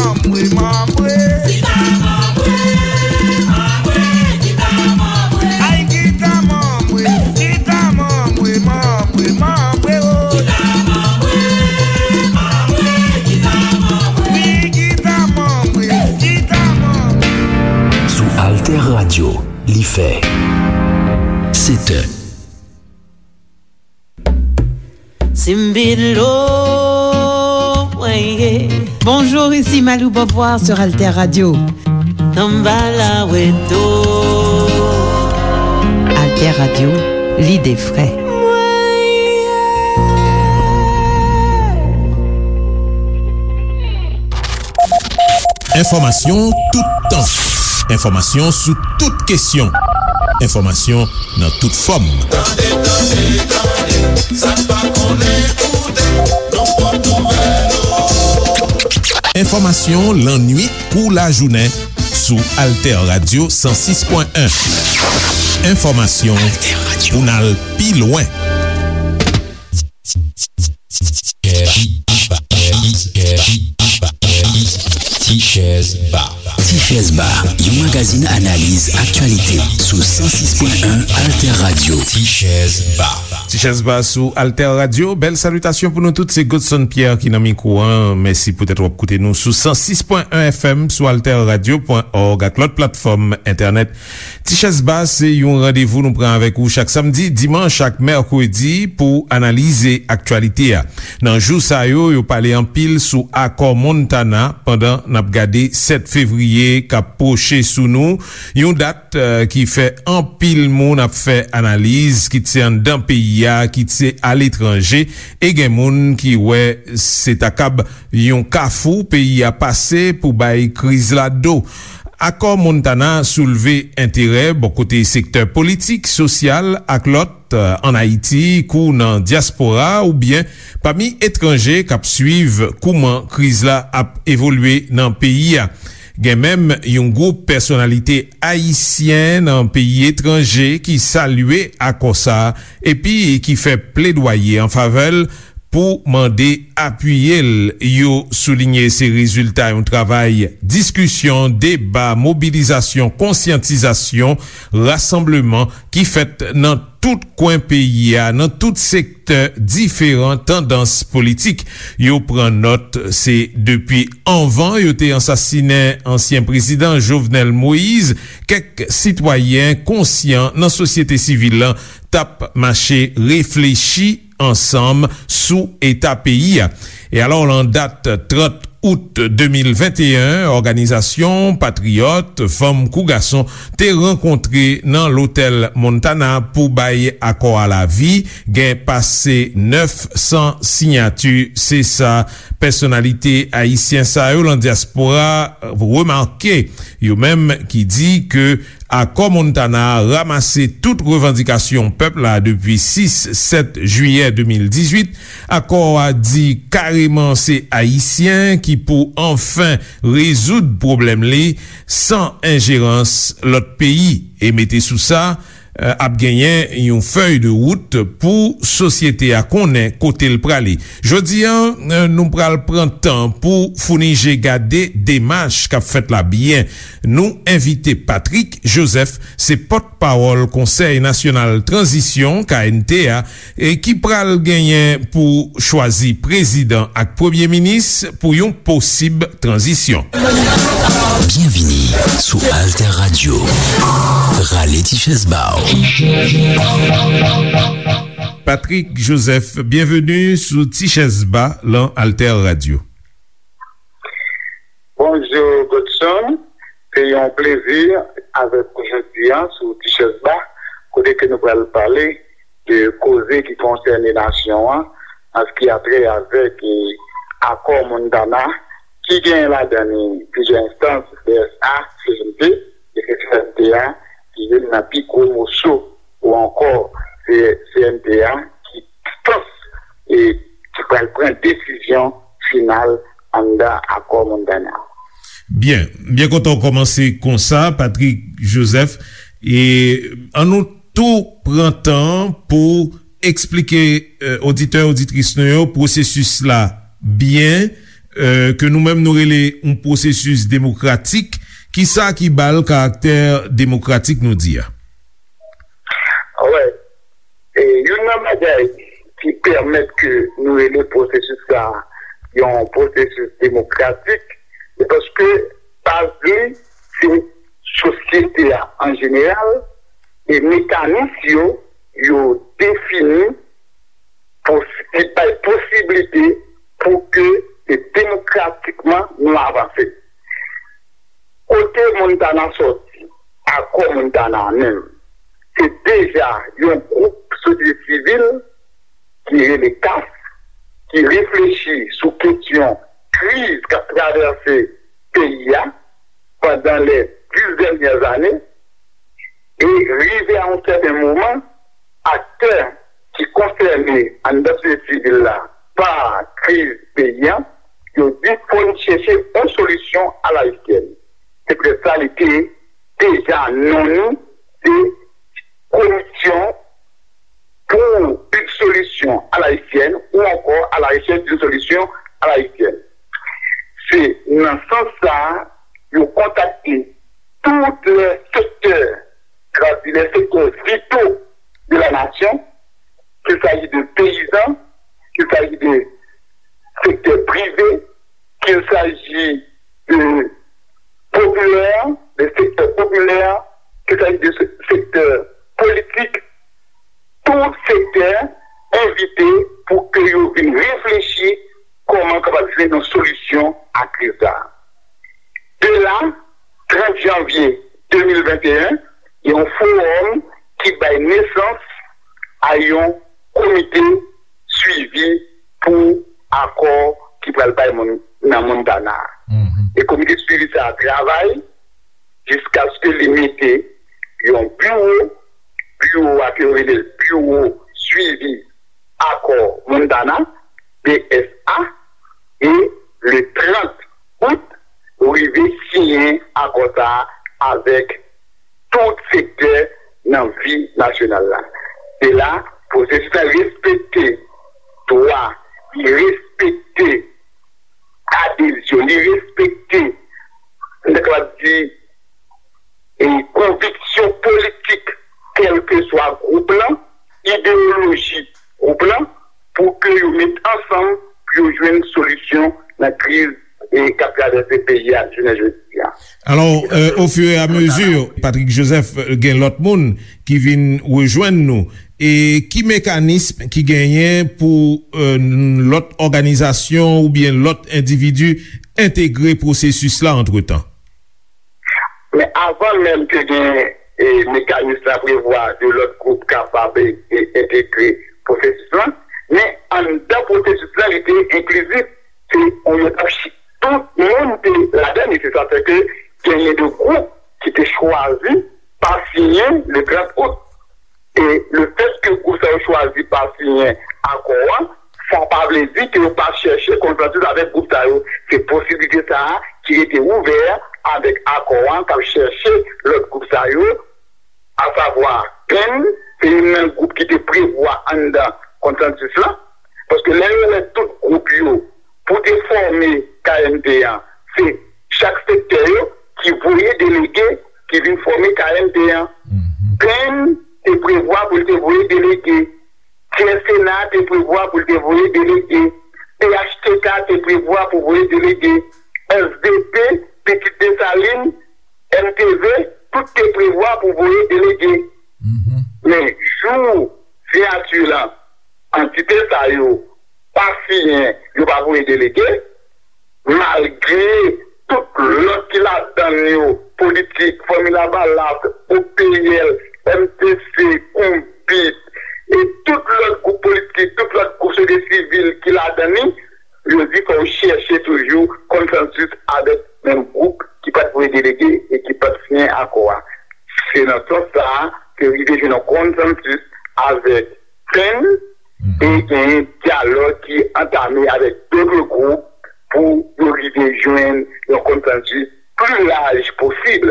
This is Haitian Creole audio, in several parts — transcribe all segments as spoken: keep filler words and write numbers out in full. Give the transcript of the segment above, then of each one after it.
Manbre, manbre. Kita manbre, manbre, kita manbre. Ay, kita manbre, kita manbre, manbre, manbre, oh. Kita manbre, manbre, kita manbre. Wi, kita manbre, kita manbre. Sou Alter Radio, li fè sèt è. Simbilo, mwen ye. Bonjour, ici Malou Beauvoir sur Alter Radio. Samba la weto. Alter Radio, lide fre. Enfòmasyon toutan. Enfòmasyon sou tout kesyon. Enfòmasyon nan tout fòm. Tande, tande, tande, sa n pa konnen koute, nan pwòp nouvèl ou. Enfòmasyon lannuit kou lajounen sou Alter Radio san sis pwen en. Enfòmasyon pou n al pi lwen. Tichèz Ba. Tichèz Ba, yon magazin analiz aktyalite sou san sis pwen en Alter Radio. Tichèz Ba. Tichèz Ba sou Alter Radio. Bèl salitasyon pou nou tout. Se Godson Pierre ki nan mikwo a. Mèsi poutèt w ap koute nou sou san sis pwen en F M, sou alter radio pwen òg ak lòt platfòm entènèt. Tichèz Ba se yon randevou nou pran avèk ou chak samdi, dimanch ak mèkredi pou analize aktyalite a. Nan jou sa yo, yo pale anpil sou akò Montana pandan n ap gade sèt fevriye k ap pwoche sou nou, yon dat, eh, ki fè anpil moun ap fè analiz, kit se anndan peyi a, kit se aletranje, e gen moun ki wè se ta kab yon kafou peyi a pase pou bay kriz la do. Akò Montana soulve enterè bò kote sektè politik, sosyal ak lòt, eh, ann Ayiti kou nan dyaspora oubyen pami etranje k ap swiv kouman kriz la ap evolye nan peyi a. Gen menm yon gwoup pèsonalite ayisyen nan peyi etranje ki salye akò sa a epi ki fè pledwaye an favè l pou mande apiye l. Yo soulinye se rezilta yon travay diskisyon, deba, mobilizasyon, konsyantizasyon, rasanbleman ki fèt nan tout kwen peyi a, nan tout sektè diferan tandans politik. Yo pran nòt, se depi anvan yo te ansasinen ansyen prezidan Jovenel Moïse, kèk sitwayen konsyan nan sosyete sivil lan t ap mache reflechi ansanm sou eta peyi a. E alò, lan dat trant out de mil venteyen, òganizasyon patriyòt, fanm kou gason, te rankontre nan Lotèl Montana pou bay akò a lavi. Gen pase nèf san siyati, se sa pèsonalite ayisyen sa yo lan dyaspora remake. Yo menm ki di ke Akò Montana a ranmase tout revandikasyon pèp la depi sis, sèt jiyè de mil dizuit. Akò a di kareman se Ayisyen ki pou anfen rezoud pwoblèm li san enjerans lòt peyi. E mete sou sa, eh, ap genyen yon fèy de wout pou sosyete a konnen kote l prale. Jodi a, eh, nou pral pran tan pou founi je gade demach k ap fèt la byen. Nou envite Patrick Joseph, se pòtpawòl Konsèy Nasyonal Tranzisyon, K N T A, e ki pral genyen pou chwazi prezidan ak premye minis pou yon posib tranzisyon. Byenvini sou Alter Radio. Rale ti chèz ba w. Patrick Joseph, byenveni sou Ti Chèz Ba lan Alter Radio. Bonjou, Godson. Se yon plezi avèk ou jodi a sou Ti Chèz Ba, kote ke nou pral pale de koze ki konsène nasyon an, an se ki a trè avèk, e, akò Montana, ki genyen ladan li plizyè enstans, D S A, C N T, e se C N T a ki youn nan pi gwo moso, ou ankò, se C N T a ki enstans, e, ki pral pran desizyon final anndan akò Montana. Byen, byen kontan w kòmanse konsa, Patrick Joseph. E ann nou tou pran tan pou eksplike, eh, oditè, oditris nou yo pwosesis la byen, ke nou menm nou rele yon pwosesis demokratik. Kisa ki ba l karaktè demokratik nou di a? Wè, e, youn nan bagay ki pèmèt ke nou rele pwosesis sa a yon pwosesis demokratik, se paske baz li se sosyete a an jeneral, e mekanis yo, yo defini pou li bay posiblite pou ke demokratikman nou avanse. Kote Montana sòti, Akò Montana a menm, se deja yon gwoup sosyete sivil ki rele kas, ki reflechi sou kesyon kriz k ap travèse peyi a pandan lè dis dènyè ane, e rive a yon sèten moman, aktè ki konsène anndan sosyete sivil la pa kriz peyi a, yo di fò n chèche yon solisyon alayisyèn. Se poutèt sa li te deja non li se Komisyon pour une solution à l'haïtienne ou encore à la recherche d'une solution à l'haïtienne. Se nan sans sa a yo kontakte tout lè sektè, sa vle di lè sektè vito de la nasyon, qu'il s'agit de peyizan, qu'il s'agit de sektè prive, qu'il s'agit de popilè, de sektè popilè, qu'il s'agit de sektè politik, tout sektè envite pou ke yo vin reflechi kòman kapab jwenn yon solisyon a kriz la. De la, trant janvye de mil venteyen, gen yon fowòm ki bay nesans a yon komite swivi pou akò ki pral bay moun nan Montana a. E komite swivi sa a travay jiskaske li mete yon biwo, biwo a ke yo rele l biwo swivi akò Montana, B S A, e le trant out, yo rive siyen akò sa a avèk tout sektè nan vi nasyonal la. Se la, pwosesis la respekte dwa, li respekte adezyon, li respekte, m ta kapab di, e konviksyon politik, kèlkeswa gwoup lan, idewoloji gwoup lan, pou ke yo met ansanm pou yo jwenn solisyon nan kriz e k ap travèse peyi a jounen jodi a. Alò, euh, au fur et à mesure, Patrick Joseph, euh, gen lòt moun ki vin rejwenn nou. E ki mekanism ki genyen pou euh, lòt òganizasyon oubyen lòt endividi entegre pwosesis la antretan? Men avan menm ke gen e, mekanis la prevwa de lòt gwoup kapab e, e, entegre pwosesis lan, men anndan pwosesis lan li te enklizif. Se yon etap tout moun te ladan li. Se sa fè ke genyen de gwoup ki te chwazi pa siyen le trant out. E lefètke gwoup sa yo chwazi pa siyen akò a, sa pa vle di ke yo pa chèche konsansis avèk gwoup sa yo. Se posiblite sa a ki rete ouvè avèk akò a k ap chèche lòt gwoup sa yo, asavwa Penn, se youn nan gwoup ki te prevwa anndan konsansis lan, paske lè yo wè tout gwoup yo pou te fòme K M T an, se chak sektè yo ki voye delege ki vin fòme K M T an. Penn te prevwa pou l te voye delege. Tyè Sena te prevwa pou l te voye delege. P H T K te prevwa pou voye delege. S D P, Pitit Desalin, M T V, tout te prevwa pou voye delege. Men jou siyati lan, antite sa yo pa siyen, yo pa voye delege, malgre tout lòt ki ladan yo, Politik, Fanmi Lavalas, O P L, M T C, Konbit, e tout lòt gwoup politik, tout lòt gwoup sosyete sivil ki ladan li, yo di fò yo chèche toujou konsansis avèk menm gwoup ki pa t voye delege e ki pa t siyen akò a. Se nan sans sa a ke rive jwenn yon konsansis avèk Penn e genyen dyalòg ki antame avèk dòt gwoup pou yo rive jwenn yon konsansis pli laj posib.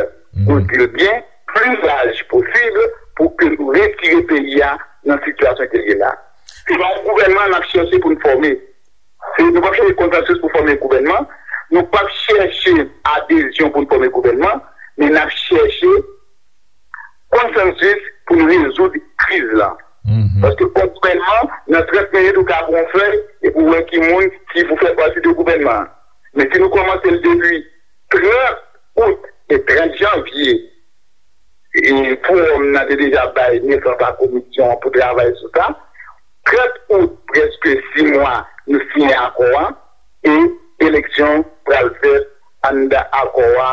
Yo di l byen, pli laj posib pou ke nou retire peyi a nan sitiyasyon ke l ye la. Se pa yon gouvènman n ap chèche pou n fòme. E nou p ap chèche konsansis pou fòme gouvènman, nou p ap chèche adezyon pou n fòme gouvènman, men n ap chèche konsansis pou n rezoud kriz la. Paske fòk gouvènman, nan trant minit, ou ka pran yon fèy epi w wè ki moun ki pou fè pati de gouvènman an. Men si nou kòmanse l depi trant out e trant janvye, e fowòm nan te deja bay nesans a komisyon an pou travay sou sa. Trant out, prèske sis mwa, nou siyen akò a, e eleksyon pral fèt anndan akò a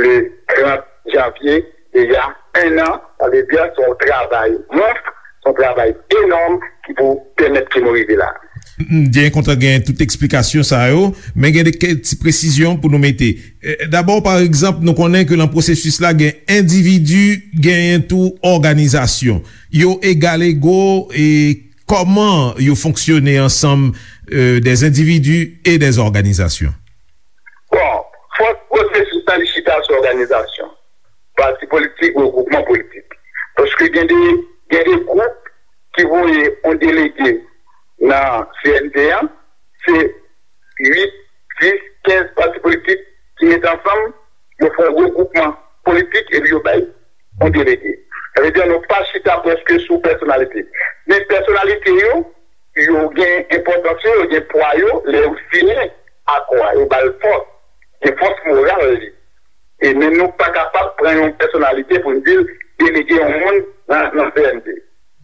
le trant janvye, deja en an, sa vle di se yon travay mons, se yon travay enòm ki pou pèmèt ke nou rive la. M byen kontan gen tout eksplikasyon sa yo, men gen de kèk ti presizyon pou nou mete. Eh, dabò, pa egzanp, nou konnen ke nan pwosesis la gen endividi, genyen tou òganizasyon. Yo egalego e kòman yo fonksyone ansanm, eh, des individus et des organisations? Bon, fòk pwosesis la li chita sou òganizasyon, pati politik, regwoupman politik. Paske gen de, gen de gwoup ki voye yon delege nan C N T an, se uit, dis, kenz pati politik ki mete ansanm, yo fè yon regwoupman politik epi yo bay yon delege. Sa vle di nou pa chita prèske sou pèsonalite. Men pèsonalite yo, yo gen enpòtans yo, yo gen pwa yo, lè yo siyen akò a, yo ba l fòs, gen fòs moral li. E men nou pa kapab pran yon pèsonalite pou n di l delege yon moun nan, nan C N T.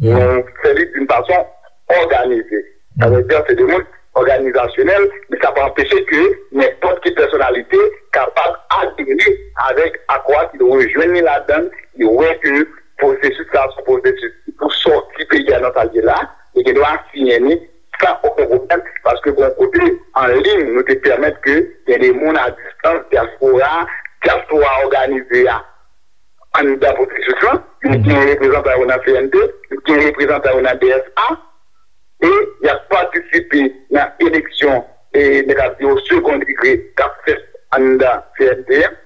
Nou fè li d'une façon organisée. Sa vle di se de moun òganizasyonèl, men sa pa anpeche ke nenpòt ki pèsonalite kapab adere avèk akò a, ki rejwenn li ladan l, li wè ke pwosesis la se yon pwosesis ki pou sòti peyi a nan sa l ye la, li gen dwa siyen li san okenn pwoblèm, paske gen yon kote an liy nou te pèmèt ke gen de moun a distans, dyaspora, dyaspora òganize a anndan pwosesis lan, li gen reprezantan yo nan C N T, li gen reprezantan yo nan D S A, e y ap patisipe nan eleksyon, e nèg ap di yo second degré k ap fèt anndan C N T an,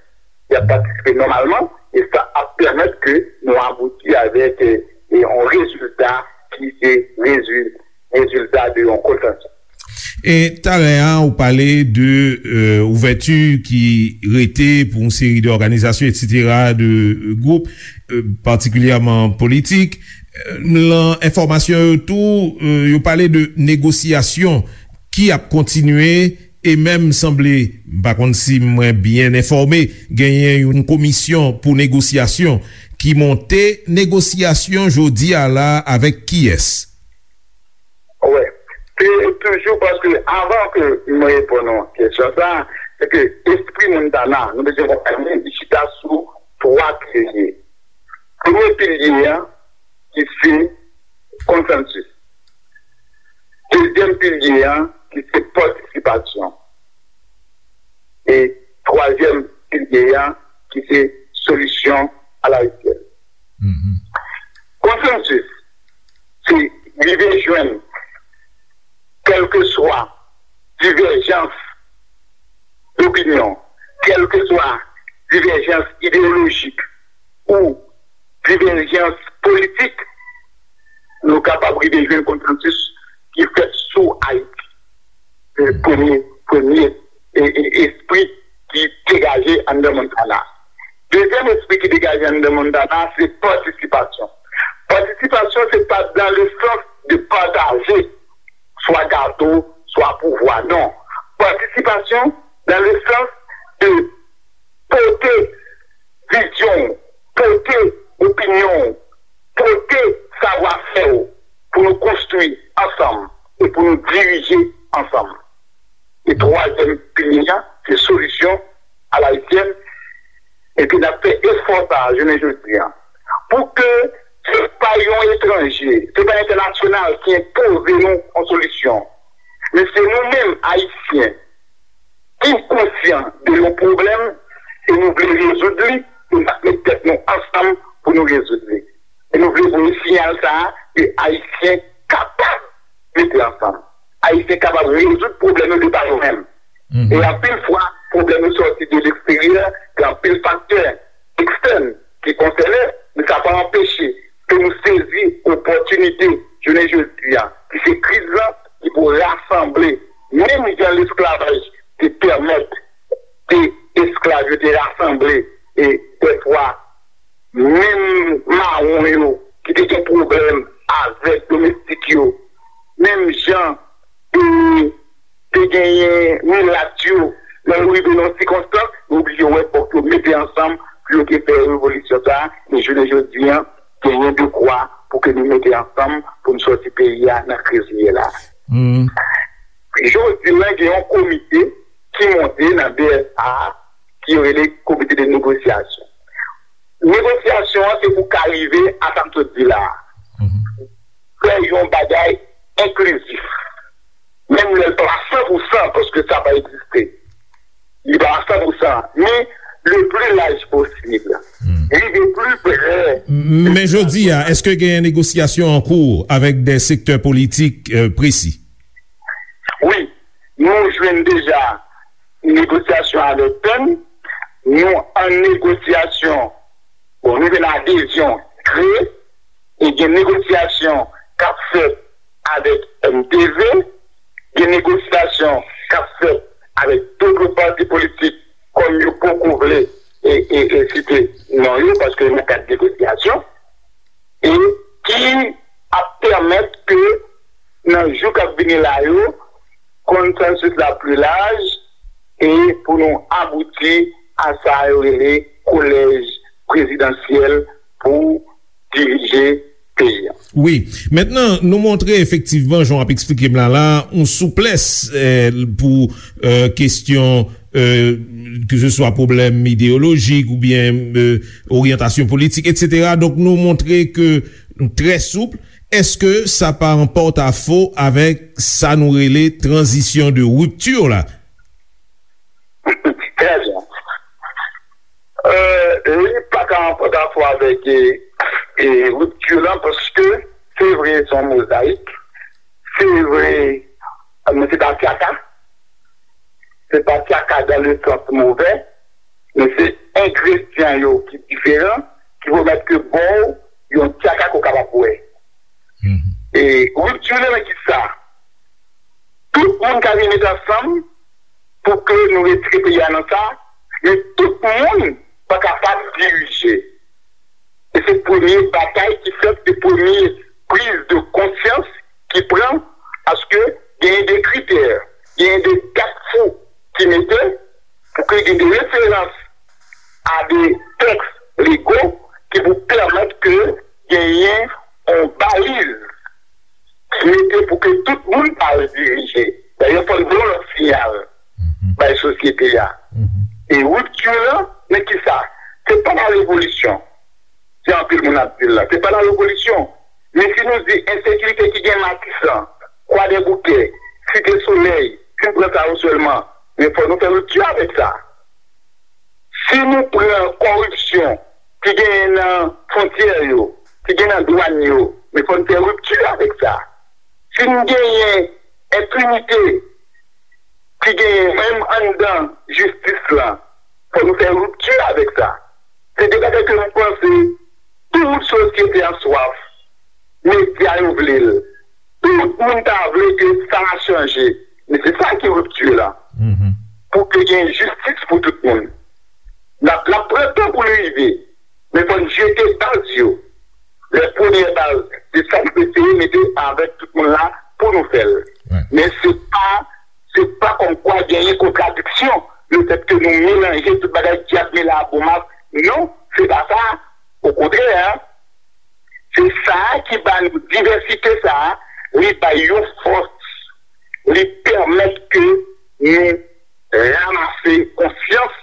y ap patisipe nòmalman, e sa ap pèmèt ke nou abouti avèk, e, e yon rezilta ki se rezil-, rezilta de yon konsansis. E talè a, ou pale de, euh, ouvèti ki rete pou yon seri de òganizasyon, et cetera, de, euh, gwoup, euh, patikilyèman politik. Euh, lan enfòmasyon yo tou, euh, yo pale de negosyasyon ki ap kontinye e menm sanble, m pa konn si mwen byen enfòme, genyen yon komisyon pou negosyasyon ki monte. Negosyasyon jodi a la avèk kiyès? Wè, se toujou paske avan ke mwen reponn yon kesyon sa, se ke espri Montana, nou bezwen konprann li, li chita sou twa pilye. Premye pilye a, ki se konsansis. Dezyèm pilye a, ki se patisipasyon. E twazyèm pilye a, ki se solisyon alayisyèn. Konsansis, se rive jwenn, kèlkeswa divèjans dopinyon, kèlkeswa divèjans ideyolojik ou divèjans politik, nou kapab rive jwenn konsansis ki fèt sou Ayiti. Se premye, premye, e, e, espri ki degaje anndan Montana. Dezyèm espri ki degaje anndan Montana, se patisipasyon. Patisipasyon, se pa dans le sens de partager swa gato, swa pouvwa, non. Patisipasyon dans le sens de pote vizyon w, pote opinyon w, pote savwafè w pou nou konstwi ansanm e pou nou dirije ansanm. E twazyèm pilye a, se solisyon alayisyèn, epi n ap fè efò sa a jounen jodi a. Pou ke se pa yon etranje, se pa entènasyonal ki enpoze nou yon solisyon, men se nou menm, Ayisyen, ki konsyan de yon pwoblèm e nou vle rezoud li, e n ap met tèt nou ansanm pou nou rezoud li. E nou vle voye siyal sa a ke Ayisyen kapab mete ansanm. Ayisyen kapab rezoud pwoblèm yo de pa yo menm. E anpil fwa, pwoblèm yo sòti de leksteryè, gen anpil faktè ekstèn ki konsène, men sa pa anpeche ke nou sezi opòtinite jounen jodi a, ki se kriz lan, ki pou rasanble Menm jan lesklavaj te pèmèt ke esklav yo te rasanble e dèfwa menm mawon yo ki te gen pwoblèm avèk domestik yo, menm jan e te genyen milat yo, lè yo rive nan sikonstans, yo oblije wè fòk yo mete ansanm pou yo te fè revolisyon sa a, e jounen jodi a, genyen dekwa pou ke nou mete ansanm pou n sòti peyi a nan kriz li ye la. Jodi la, gen yon komite ki monte nan B S A ki yo rele Komite de Negosyasyon. Negosyasyon an se pou ka rive a sa m sot di la a. Fè yon bagay enklizif. Menm lè l pa san pou san, paske sa pa egziste. Li pa san pou san, men le pli laj posib. Rive pli pre. Men jodi a, èske gen negosyasyon an kou avèk de sektè politik, euh, presi? Wi, nou jwenn deja negosyasyon avèk P E N, nou an negosyasyon, bon, nou jwenn adezyon kre, e gen negosyasyon k ap fèt avèk M T V, gen negosyasyon k ap fèt avèk tout lòt pati politik, kòm yo poko vle e, e, e site non yo, paske yo nan kad negosyasyon, e ki ap pèmèt ke nan jou k ap vini la yo, konsansis la pli laj, e pou nou abouti a sa yo rele kolèj prezidansyèl pou dirije peyi a. Wi. Mentnan, nou montre efektivman, jan w ap eksplike m la la, yon souplès, eh, pou, eh, kesyon, eh, ke se swa pwoblèm ideyolojik oubyen, eh, oryantasyon politik, etsetera. Donk, nou montre ke nou trè soup. Èske sa pa an pòtafo avèk sa nou rele tranzisyon de ripti la? Trè byen. Euh, li pa ka an pòtafo avèk, e, e, ripti lan, paske se vre, se yon mozayik. Se vre, men se pa tyaka. Se pa tyaka dan le sans movè, men se engredyan yo ki diferan, ki pèmèt ke ba w yon tyaka ke w kapab bwè. E ripti lan nan ki sa? Tout moun ka vin met ansanm pou ke nou retire peyi a nan sa, men tout moun pa kapab dirije. E se premye batay ki fèt, se premye priz de konsyans ki pran, paske genyen de kritè, genyen de gad fou ki mete pou ke gen de referans a de tèks lego ki pou pèmèt ke genyen yon baliz ki mete pou ke tout moun pa al dirije. Dayè, fò n voye yon lòt siyal bay sosyete a. E ripti lan, men ki sa? Se pa la revolisyon. Se anpil moun ap di l la. Se pa la revolisyon. Men si nou di ensekirite ki gen Matisan, Kwadèboukè, Site Solèy, si n pran sa yo sèlman, men fò nou fè ripti avèk sa. Si nou pran kòripsyon ki genyen nan fwontyè yo, ki gen nan dwàn yo, men fò n fè ripti avèk sa. Si n genyen enpinite ki genyen menm anndan jistis lan, fò nou fè ripti avèk sa. Se de bagay ke m panse tout sosyete an swaf. Medya yo vle l. Tout moun ta vle ke sa a chanje. Men se sa ki ripti lan. Pou ke gen jistis pou tout moun. L ap, l ap pran tan pou l rive. Men fò n jete baz yo. Lè premyè baz, se sa n eseye mete avèk tout moun la pou nou fè l. Men se pa, se pa kòmkwa genyen kontradiksyon, lefètke nou melanje tout bagay, dyab mele a bon mak. Non, se pa sa. Okontrè, se sa a ki ba nou divèsite sa a, li bay yon fòs, li pèmèt ke nou ranmase konsyans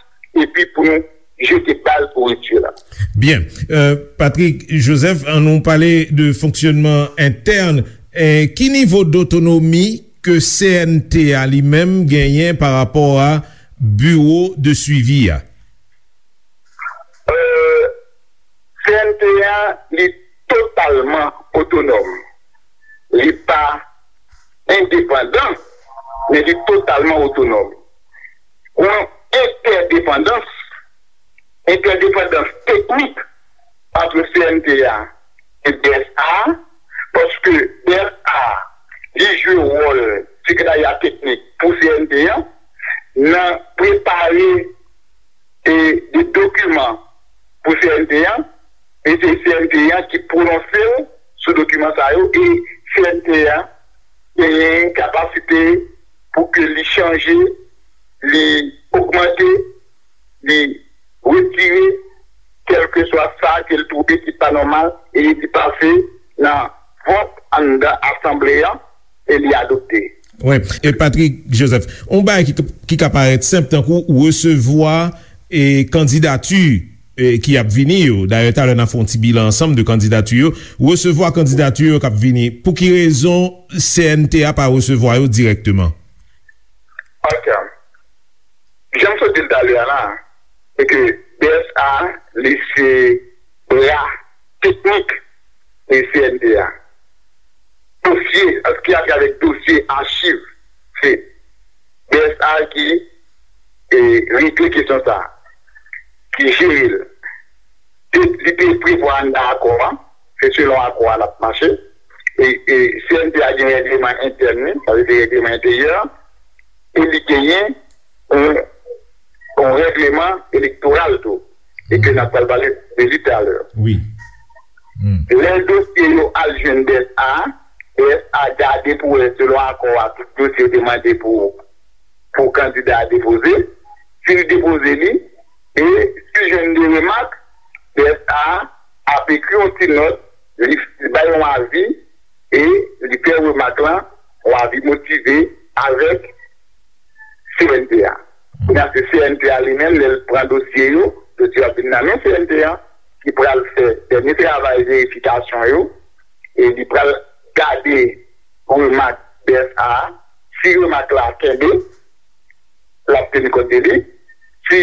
epi pou nou jete baz pou ripti lan. Byen. Euh, Patrick Joseph, ann nou pale de fonksyònman entèn. Eh, ki nivo dotonomi ke C N T a li menm genyen pa rapò a biwo de swivi a? Euh, C N T a, li totalman otonòm. Li pa endepandan, men li totalman otonòm. Gon entèdepandans, entèdepandans teknik ant C N T A e B S A, paske B S A, li jwe wòl sekretarya teknik N an, nan prepare e de dokiman pou C N T an, e se C N T an ki pwononse l sou dokiman sa yo, e C N T an genyen kapasite pou ke li chanje, li ogmante, li retire, kèlkeswa sa ke l twouve ki pa nòmal, e li pase nan vòt anndan asanble an, e li adopte. Wi, e Patrick Joseph, yon bagay ki, ki ka parèt senp, tankou resevwa e kandidati e ki ap vini yo. Dayè, talè n a fè yon ti bilan ansanm de kandidati yo. Resevwa kandidati yo k ap vini. Pou ki rezon C N T a pa resevwa yo dirèkteman? Ok. Jan m sot di l talè a la, se ke B S A, li se bra teknik de C N T a. Dosye, ki atravè dosye, achiv, se B S A ki, e, regle kesyon sa, ki jere l. Te, li te prevwa anndan akò a, se selon akò a l ap mache. E, e C N T a gen règleman entèn li, sa vle di règleman enteryè, e li genyen yon, yon règleman elektoral tou, e ke n ap pral pale de li talè. Wi. Lè dosye yo al jwenn B S A, B S A gade pou wè selon akò a, tout dosye yo te mande pou, pou kandida a depoze. Si li depoze li, e si l jwenn de remak, B S A ap ekri yon ti nòt, li, li bay yon avi, e li fè remak lan, yon avi motive avèk C N T a. Kounye a, se C N T a li menm, lè l pran dosye yo, dosye yo ap vin nan men C N T a, ki pral fè dènye travay verifikasyon yo, e li pral gade remak B S A a. Si remak la kenbe, l ap teni kont de li. Si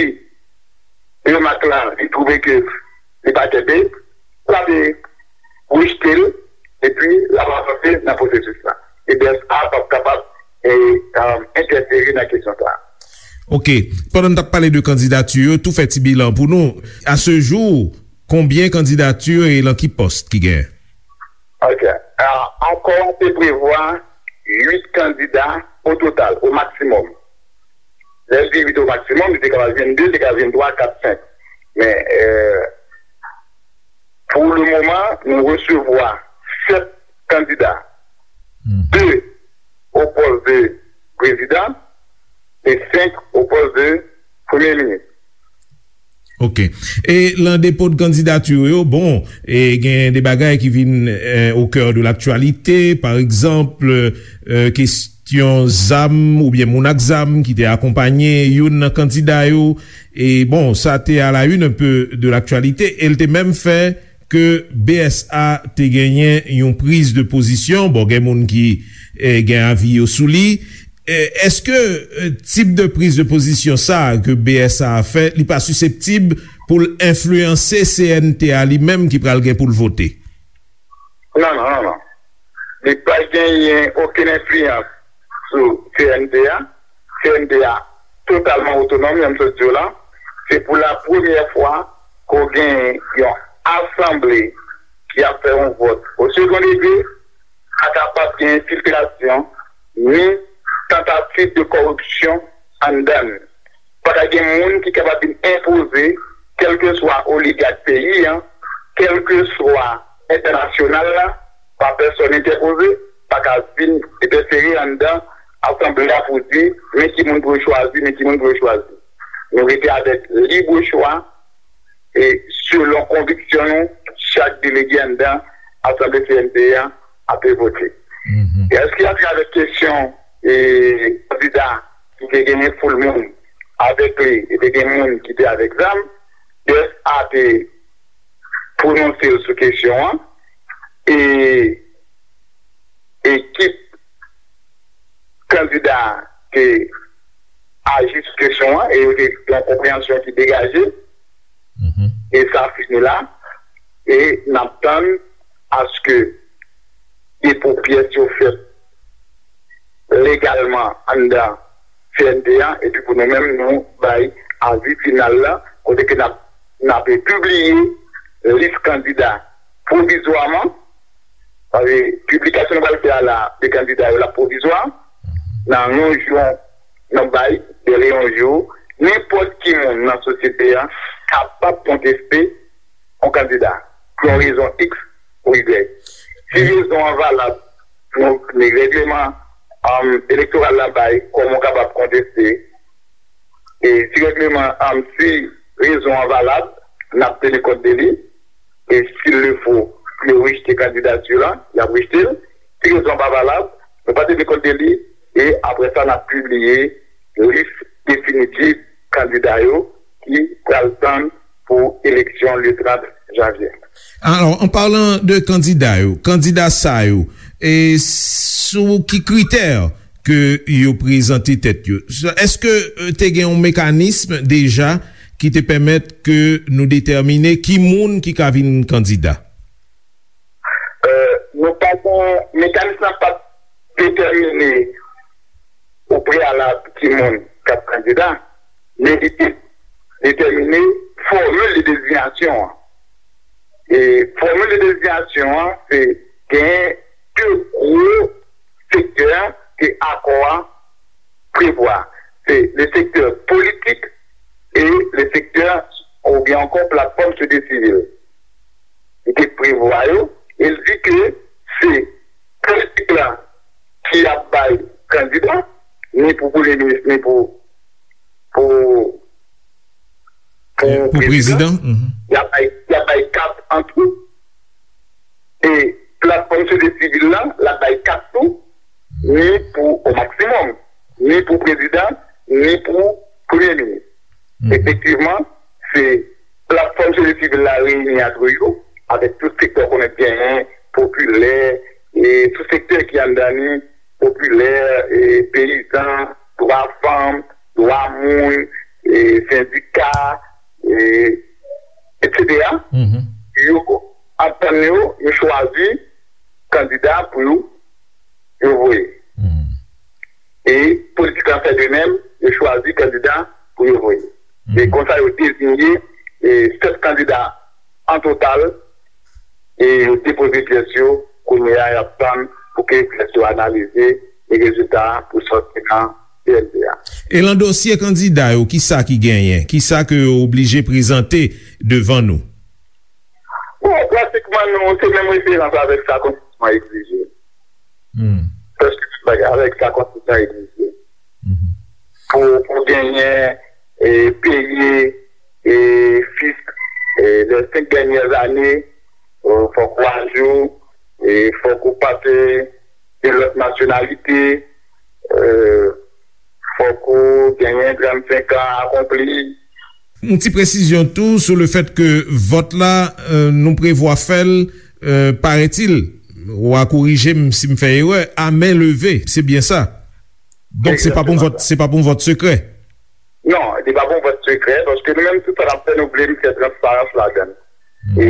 remak la, li twouve ke li pa kenbe, l ap rejte l, epi l ap avanse nan pwosesis la. E B S A p ap kapab, e, e, entèfere nan kesyon sa a. Ok. Pandan n t ap pale de kandidati yo, tou fè ti bilan pou nou. A ce jour, konbyen kandidati e lan ki pòs ki genyen? Ok. A, akò a te prevwa uit kandida o total, o maksimòm. Lè l di uit o maksimòm, li te kapab vin de, li te kapab vin twa, kat, senk. Men, e, pou le moman, nou resevwa sèt kandida. De o pòs de prezidan e senk o pòs de premye minis. Ok. E lan depo de kandidati yo, bon, e gen de bagay ki vin, e, au cœur de l'actualité, pa egzanp, e, kesyon zam oubyen moun ak zam ki te akonpanye youn nan kandida yo. E bon, sa te à la une un peu de l'actualité, e l te menm fè ke B S A te genyen yon priz de pozisyon. Bon, gen moun ki, e, gen avi yo sou li. E, èske, e, tip de priz de pozisyon sa a ke B S A a fè, li pa siseptib pou l enfliyanse C N T a li menm ki pral gen pou l vote? Non, non, non, non. Li pa genyen okenn enfliyans sou C N T a. C N T a totalman otonòm, jan m sot di w la. Se pou la premyè fwa ke w gen yon asanble ki ap fè yon vòt o second degré, pa kapab gen enfiltrasyon, ni tantativ de kòripsyon anndan l. Pa ka gen moun ki kapab vin enpoze, kèlkeswa oligak peyi a, kèlkeswa entènasyonal la, pa pèsòn entèpoze, pa ka vin entèfere anndan asanble a pou di, men ki moun pou yo chwazi, men ki moun pou yo chwazi. Nou rete avèk lib chwa, e selon konviksyon nou, chak delege anndan asanble C N T a ap vote. E èske atravè kesyon, e, kandida ki te genyen foul moun avèk li, e te gen moun ki te avèk zam, B S A te pwononse l sou kesyon an, e ekip kandida te aji sou kesyon an, e yo te gen yon konpreyansyon ki degaje, e sa fini la, e n ap tann aske depo pyès yo fèt legalman anndan C N T a, epi pou nou menm, nou bay avi final la, kote ke n ap, n ap pibliye lis kandida pwovizwaman, sa vle, piblikasyon nou pral fè a la, de kandida yo la pwovizwa, nan yon jou, nan bay de Leon Jou, nenpòt ki moun nan sosyete a kapab konteste yon kandida pou yon rezon X ou Y. Si rezon an valab, donk, men règleman, um, elektoral la bay kòman w kapab konteste, e si règleman, um, si rezon an valab, n ap teni kont de li, e s'il le faut, si yo rejte kandidati lan, y ap rejte l. Si rezon an pa valab, nou pa teni kont de li, e apre sa, n ap pibliye lis definitif kandida yo ki pral tann pou eleksyon le trant janvye. Alors, en parlant de kandida yo, kandida sa yo, e sou ki kritè ke yo prezante tèt yo? Èske, euh, te gen yon mekanism deja ki te pèmèt ke nou detèmine ki moun ki ka vin kandida? Euh, nou pa gen, mekanism nan pa t detèmine o preyalab ki moun k ap kandida, men li te detèmine fòmil de dezinyasyon an. E fòmil de dezinyasyon an, se gen de gwo sektè ke akò a prevwa. Se le sektè politik e le sektè, oubyen ankò platfòm sosyete sivil. Li te prevwa yo, e l di ke se politik la ki ap bay kandida, ni pou premye minis, ni pou, pou, pou prezidan. Y ap bay, y ap bay kat an tou. E platfòm sosyete sivil la, l ap bay kat tou, ni pou, o maksimòm, ni pou prezidan, ni pou premye minis. Efektivman, se platfòm sosyete sivil la reyini antre yo, avèk tout sektè w konnen genyen, popilè, e tout sektè ki anndan li, popilè, e peyizan, dwa fanm, dwa moun, e sendika, e, etsetera. Yo antann yo, yo chwazi kandida pou yo, yo voye. E politik la fè de menm, yo chwazi kandida pou yo voye. E konsa, yo deziye, e, sèt kandida an total, e yo depoze pyès yo, kounye a, y ap tann pou ke pyès yo analize, e rezilta a pou sòti nan C N P A. E nan dosye kandida yo, kisa ki genyen? Kisa ke yo oblije prezante devan nou? Bon, pratikman, nou se menm referans avèk sa konstitisyon an egzije. Prèske tout bagay avèk sa konstitisyon an egzije. Pou, pou genyen, e, peye, e, fisk, e, les cinq dernières années, e, fòk ou ajou, e, fòk ou pase de lòt nasyonalite, e, fòk ou genyen trannsenk an akonpli. Yon ti presizyon tou sou le fèt ke vòt la, e, nou prevwa fè l, e, paraît-il, w a korije m si m fè erè, à main levée, c'est bien ça? Donk, se pa pou yon vòt, se pa pou yon vòt sekrè? Non, li pa pou yon vòt sekrè, paske nou menm, tout sa n ap fè, nou vle fè transparans ladan l. E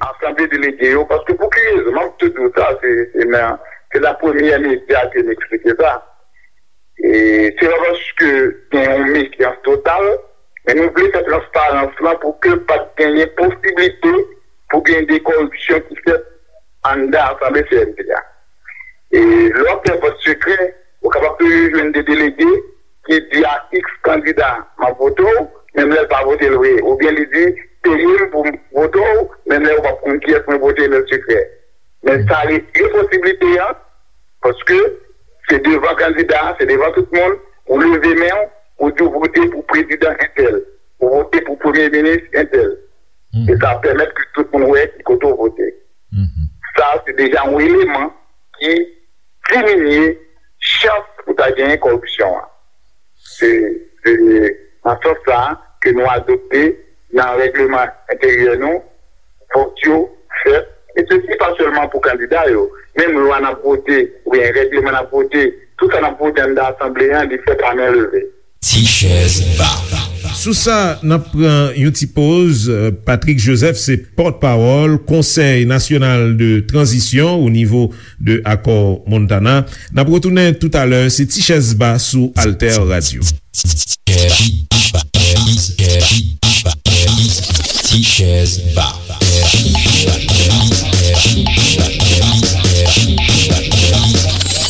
asanble delege yo, paske pou ki rezon? M ap tou di w sa, se, se nan, se nan premyè medya ke m eksplike sa. E se pa paske gen yon mefyans total, men nou vle fè transparans lan pou ke pa t genyen posiblite pou gen de kòripsyon ki fèt anndan asanble C N P a. E lè w ap fè vòt sekrè, ou kapab toujou jwenn de delege ki di a X kandida, "M ap vote w," menm lè l pa vote l vre. Oubyen li di, "Peye m pou m vote w," menm lè ou p ap konn kiyès mwen vote nan sekrè. Men sa retire posiblite a, paske se devan kandida, se devan tout moun, ou leve men w, ou di w vote pou prezidan entèl, ou vote pou premye minis entèl. E sa pèmèt ke tout moun wè ki kote w vote. Sa, se deja yon eleman ki diminye chans pou ta genyen kòripsyon an. Se, se nan sans sa a ke nou adopte nan règleman enteryè nou, fòk yo fèt. E sesi pa sèlman pou kandida yo. Menm lwa n ap vote, oubyen règleman n ap vote, tout sa n ap vote anndan asanble a, li fèt a men leve. Ti chèz ba. Sou sa, n ap pran yon ti poz. Patrick Joseph se pòtpawòl Konsèy Nasyonal de Tranzisyon o nivo de Akò Montana. N ap retounen toutalè, se Ti chèz ba sou Alter Radio. Ti chèz ba.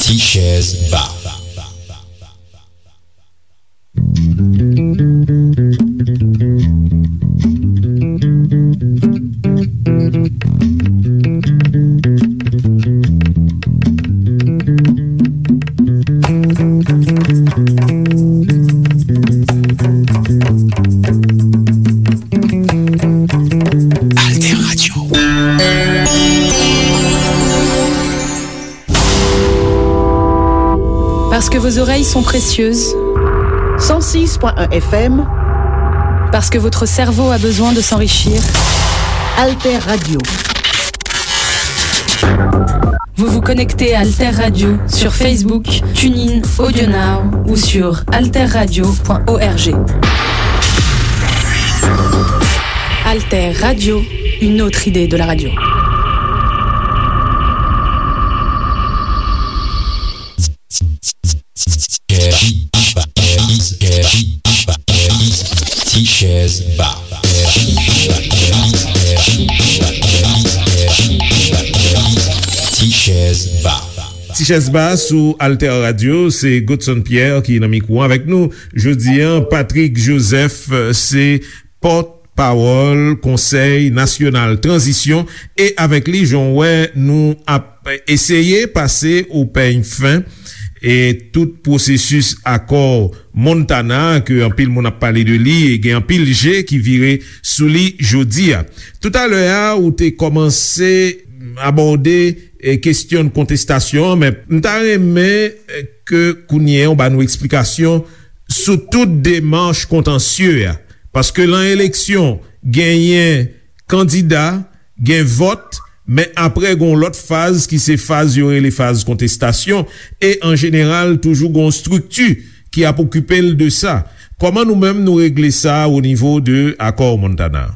Ti chèz ba. Parce que vos oreilles sont précieuses. Cent six point un F M. Parce que votre cerveau a besoin de s'enrichir. Alter Radio. Vous vous connectez à Alter Radio sur Facebook, TuneIn, AudioNow ou sur alterradio point org. Alter Radio, une autre idée de la radio. Ti chèz ba. Ti chèz ba. Ti chèz ba sou Alter Radio, se Godson Pierre ki nan mikwo avèk nou. Jodi a, Patrick Joseph, se pòt pawòl Konsèy Nasyonal Tranzisyon, e avèk li, jan w wè, nou ap eseye pase o pèny fen e tout pwosesis akò Montana, ke anpil moun ap pale de li, e gen anpil je ki vire sou li jodi a. Toutalè a, ou te kòmanse abòde, e, kesyon kontestasyon an, men m ta renmen, e, ke kounye a w ba nou eksplikasyon sou tout demach kontansye a. Paske lan eleksyon, genyen kandida, gen vòt, men apre gen yon lòt faz ki se faz yo rele faz kontestasyon, e an jeneral toujou gen yon estrikti ki ap okipe l de sa. Kòman nou menm nou regle sa o nivo de akò Montana?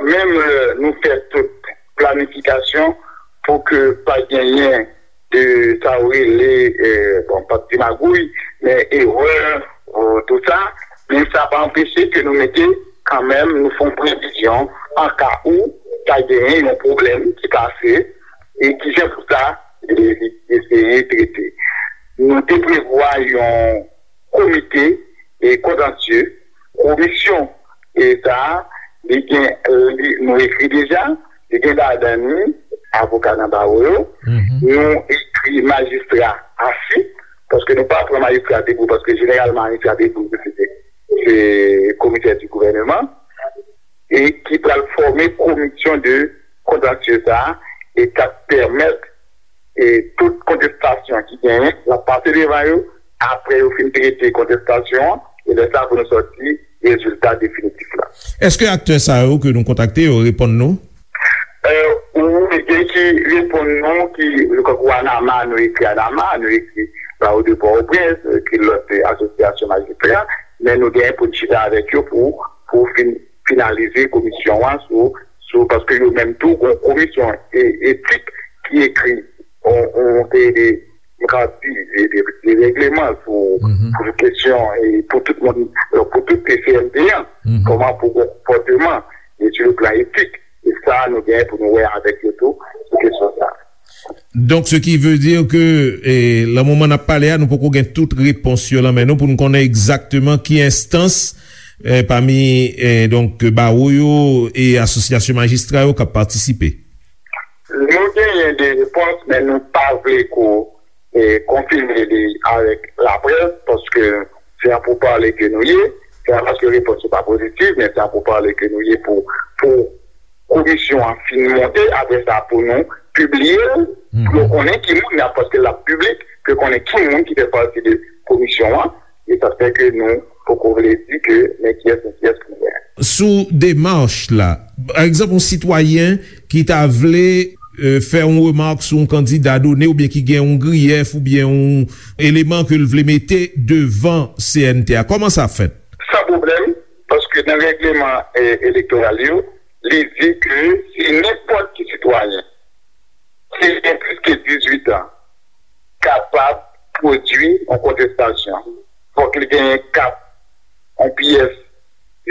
Menm lè nou fè tout planifikasyon pou ke pa genyen de sa w rele, bon, pa t di magouy, men erè, tout sa, men sa pa anpeche ke nou mete kanmenm, nou fè yon previzyon an ka ou ta genyen yon pwoblèm ki pase e ki jan pou sa eseye trete. Nou te prevwa yon komite e kontansye, komisyon e sa a, li gen, li, nou ekri deja, li gen ladan li avoka nan bawo yo, nou ekri majistra asi, paske nou pa pran majistra debou, paske jeneralman majistra debou se, se komisè di gouvèneman, e ki pral fòme komisyon de kontansye sa a, e k ap pèmèt e tout kontestasyon ki genyen, l ap pase devan yo, apre yo fin trete kontestasyon an, e lè sa pou nou sòti rezilta definitif la. Èske aktè sa yo ke nou kontakte yo reponn nou? Wi, gen ki reponn nou, ki, tankou ANAMA, nou ekri ANAMA, nou ekri Bawo de Pòtoprens, nou ekri lòt asosyasyon majistra, men nou genyen pou n chita avèk yo pou, pou fin, finalize komisyon an sou, sou, paske yo menm tou, gen yon komisyon etik ki ekri yon, yon seri de, m ka di, de, de, de règleman sou, pou kesyon, e pou tout moun, pou tout C N T an, kòman pou gen konpòteman, e sou le plan etik, e sa, nou genyen pou nou wè avèk yo tou sou kesyon sa. Donk, ce qui veut dire que, e, lan moman n ap pale a, nou poko gen tout repons yo lan men nou pou n konnen egzakteman ki enstans, e, pami, e, donk, bawo yo e asosyasyon majistra yo k ap patisipe. Nou genyen de repons, men nou pa vle ko, e, konfime li avèk laprès, paske se an poupale ke nou ye, se pa paske repons yo pa pozitif, men se an poupale ke nou ye pou, pou komisyon an fin monte, apre sa pou nou pibliye l, pou yo konnen ki moun y ap, paske l ap piblik, pou yo konnen ki moun ki fè pati de komisyon an, e sa fè ke nou poko vle di ke men kiyès, men kiyès pou nou genyen. Sou demach la, pa egzanp, yon sitwayen ki ta vle, e, fè yon remak sou yon kandida done oubyen ki gen yon griyèf oubyen yon eleman ke l vle mete devan C N T a, kòman sa fèt? San pwoblèm, paske nan règleman, e, elektoral yo, li di ke si nenpòt ki sitwayen ki gen plis ke dizuit an kapab pwodui yon kontestasyon, fòk li genyen kat, yon pyès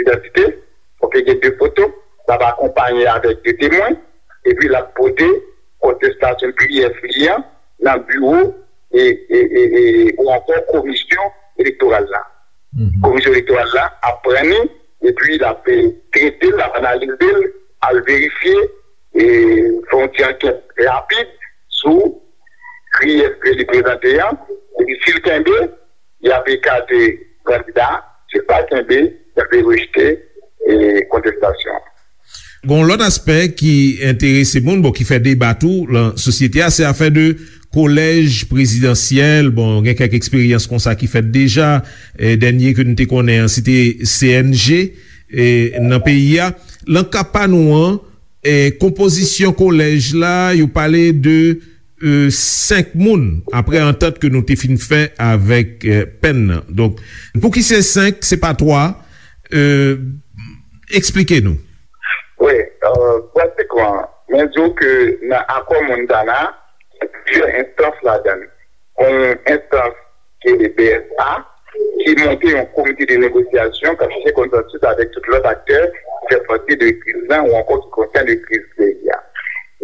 idantite, fòk li gen de foto, l ap akonpaye avèk de temwen, epi l ap pote kontestasyon pyès li an nan biwo e, e, e, e, ou ankò komisyon elektoral la. Komisyon elektoral la ap pran li, epi l ap, e, trete l, l ap analize l, al verifye, e, fè yon ti ankèt rapid sou griyèf ke li prezante an, epi si l kenbe, y ap ekate kandida, si l pa kenbe, y ap rejte, e, kontestasyon an. Gen yon lòt aspè ki enterese moun, bon, ki fè deba tou lan sosyete a, se afè de kolèj prezidansyèl, bon, gen kèk eksperyans konsa ki fèt deja. E, dènye ke nou te konnen an, se te C N G, e, nan peyi a. Nan ka pa nou an, e, konpozisyon kolèj la, yo pale de, e, senk moun, apre antant ke nou te fin fè avèk, e, Penn nan. Donk, pouki se senk, se pa twa? E, eksplike nou. Wi, e, pratikman, mwen di w ke nan akò Montana, gen plizyè enstans ladan l. Yon enstans ki rele B S A, ki monte yon komite de negosyasyon k ap chèche konsansis avèk tout lòt aktè ki fè pati de kriz la ou ankò ki konsène kriz peyi a.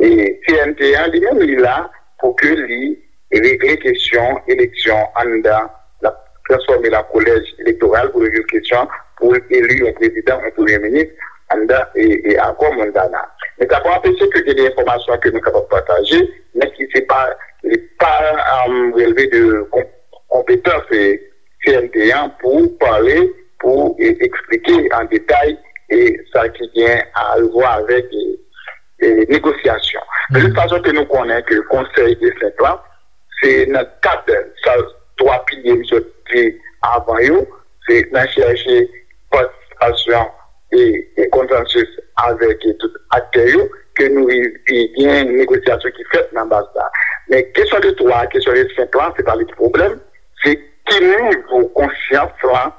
E C N T an, li menm, li la pou ke li regle kesyon eleksyon anndan, l ap transfòme l an kolèj elektoral pou regle kesyon pou eli yon prezidan, yon premye minis anndan e, e akò Montana. Men sa pa anpeche ke gen de enfòmasyon ke nou kapab pataje, men ki se pa, li pa, um, releve de kon-, konpetans, e, C N T an pou pale, pou, e, eksplike an detay, e, sa ki gen a wè avèk, e, e, negosyasyon. De tout fason ke nou konnen ke konsèy de senk lan, se nan kad sa twa pilye m sot di avan yo, se nan chèche patisipasyon e, e konsansis avèk, e, tout aktè yo, ke nou rive gen negosyasyon ki fèt nan baz la. Men kesyon de twa, kesyon de senk lan, se pa li ki pwoblèm, se ki nivo konsyans lan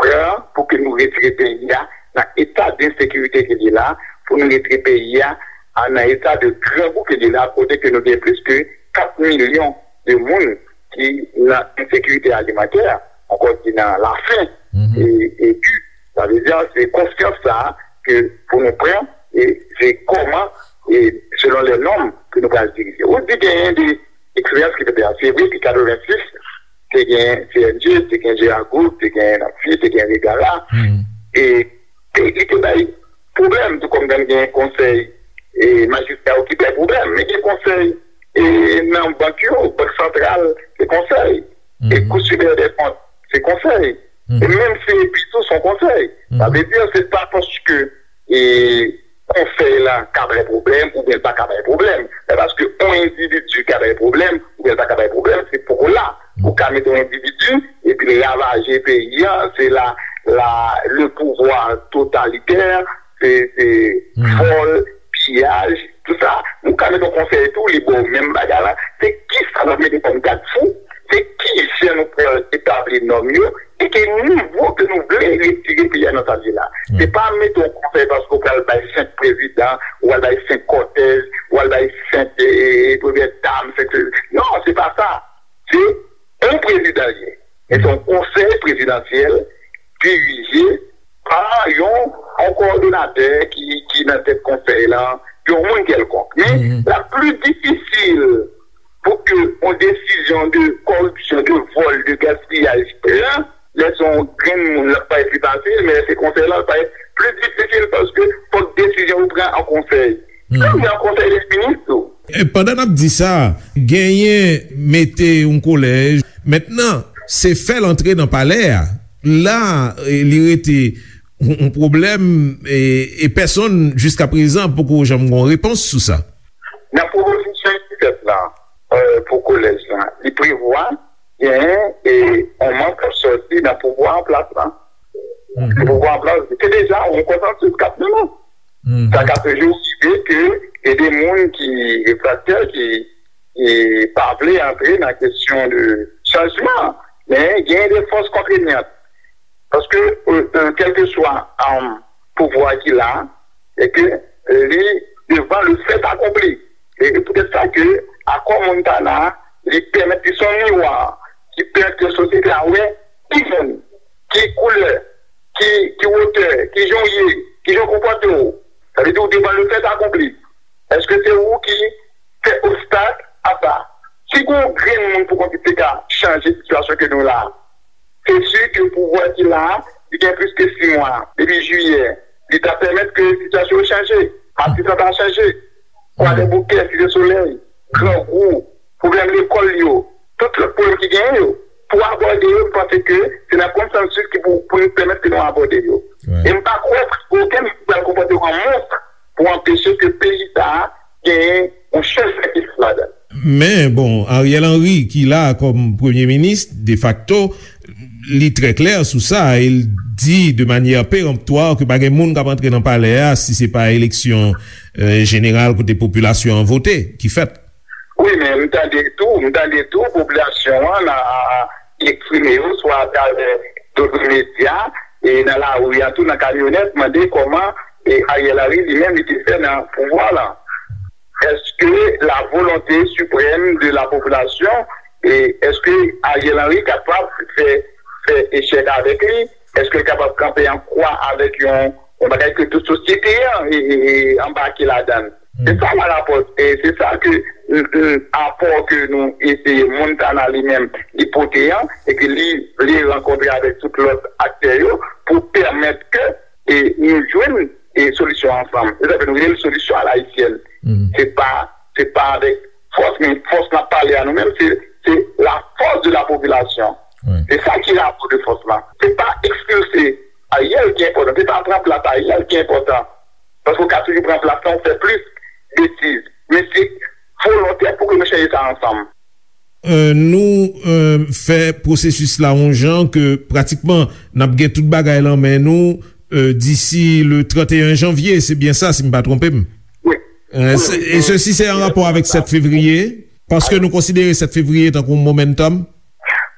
pran pou ke nou retire peyi a nan eta de ensekirite ke li la, pou nou retire peyi a, a nan eta de grangou ke li la, kote ke nou gen plis ke kat milyon de moun ki nan ensekirite alimantè, ankò ki nan lafen, e, e ki, sa vle di, se konsyans sa a ke pou nou pran, e se kòman, e selon lè nòm ke nou pral dirije. Ou di genyen de eksperyans ki te fèt, se vre ke katrevensis, te gen C N G, te gen Gérard Group, te gen Napfi, te gen Regala. E, e li te bay pwoblèm, tou kòm gen konsèy, e, majistra yo ki bay pwoblèm, men gen konsèy, e, nan bank yo, Bank Santral, se konsèy, e Cour Supérieure des Comptes, se konsèy, e menm C N P tou se yon konsèy. Sa vle di, se pa paske, e, konsèy la ka bay pwoblèm oubyen l pa ka bay pwoblèm. Se paske yon endividi ka bay pwoblèm oubyen l pa ka bay pwoblèm, se poko la. Ou ka mete yon endividi epi l ravaje peyi a, se la, la, le pouvoir totalitè, se, se vòl, piyaj, tout sa. Nou ka mete yon konsèy tou, li ba w menm bagay la. Se kisa n ap mete kòm gad fou? Se kijan nou pral etabli nòm yo? E ki nivo ke nou vle retire peyi a nan sa l ye la? Se pa mete yon konsèy paske w pral bay senk prezidan, ou pral bay senk kòtèj, ou pral bay senk, e, e, premyè dam, senk, non, se pa sa. Se yon prezidan l ye. E se yon konsèy prezidansyèl dirije pa yon, yon kowòdonatè ki, ki nan tèt konsèy lan, yon moun kèlkonk. Men, l ap pli difisil pou ke yon desizyon de kòripsyon, de vòl, de gaspiyaj pran, lè se yon grenn moun, l ap parèt pli fasil, men lè se konsèy lan, l parèt pli difisil paske fòk desizyon yo pran an konsèy. Menm nan konsèy dè minis tou. E pandan n ap di sa, genyen mete yon kolèj. Mentnan, se fè l antre nan palè a. La, e, li rete yon, yon pwoblèm, e, e pèsonn, jiskaprezan, poko janm gen yon repons sou sa. Nan pwopozisyon ki fèt la, e, pou kolèj la, li prevwa genyen, e, yon manm k ap sòti nan pouvwa an plas la. Pouvwa an plas, se deja yon konsansis k ap mennen. Sa ka toujou rive ke gen de moun ki refraktè, ki, ki pa vle antre nan kesyon de chanjman, men gen de fòs kontrenyant. Paske, e, e, kèlkeswa, e, pouvwa ki la, e ke, e, li devan le fait accompli. E, e poutèt sa ke akò Montana, li pèmèt, li se yon miwa ki pèmèt ke sosyete a wè ki moun, ki koulè, ki, ki wotè, ki jan w ye, ki jan w konpòte w. Sa vle di w devan le fait accompli. Èske se ou ki fè obstak a sa? Si gon grenn moun pou konn ki te ka chanje sitiyasyon ke nou la, se si ke pouvwa ki la, li gen plis ke sis mwa, depi jiyè, li ta pèmèt ke sitiyasyon yo chanje, Matis lan ta chanje, Kwadèboukè, Site Solèy, Grangou, pwoblèm lekòl yo, tout lòt pwoblèm ki genyen yo, pou abòde yo, m panse ke se nan konsansis ki pou, pou nou pèmèt ke nou abòde yo. E m pa kwè okenn moun pral konpòte w an monstre pou anpeche ke peyi sa a genyen yon chanjman ki fèt ladan l. Men, bon, Ariel Henry, ki la kòm premye minis, defakto, li trè klè sou sa, e l di de manyè peremptwa ke pa gen moun k ap antre nan palè a si se pa eleksyon, eh, jeneral kote popilasyon an vote ki fèt. Wi, men m tande tou, m tande tou popilasyon an nan, eksprime yo swa atravè dòt medya e nan lari a tou, nan kamyonèt, mande kòman e Ariel Henry li menm li te fè nan pouvwa la. Èske la volonté suprême de la population, e èske Ariel Henry kapab fè, fè echèk avèk li? Èske l kapab kanpe an kwa avèk yon, yon bagay ke tout sosyete an e, e, e anbake ladan l? Se sa la rapò, e se sa ke, mm, mm, apò ke nou eseye, Montana li menm, li pote an, e ke li vle rankontre avèk tout lòt aktè yo pou pèmèt ke e nou jwenn e solisyon ansanm. Se sa fè nou rele l solisyon a la ayisyèn. Se pa, se pa avèk fòs, men fòs n ap pale a nou menm, se, se la force de la population. Se sa ki rapò de fòs la. Se pa ekspilse Ariel ki enpòtan, se pa pran plas Ariel ki enpòtan. Paske w ka toujou pran plas la, w fè plis betiz. Men se volontè pou ke nou chanje sa ansanm. Euh, nou, euh, fè pwosesis la yon jan ke pratikman n ap gen tout bagay lan men nou, euh, disi le trannteyen janvye, se byen sa, si m pa twonpe m. Wi. Euh, se- e sesi se an rapò avèk sèt fevriye, paske nou konsidere sèt fevriye tankou yon momentum.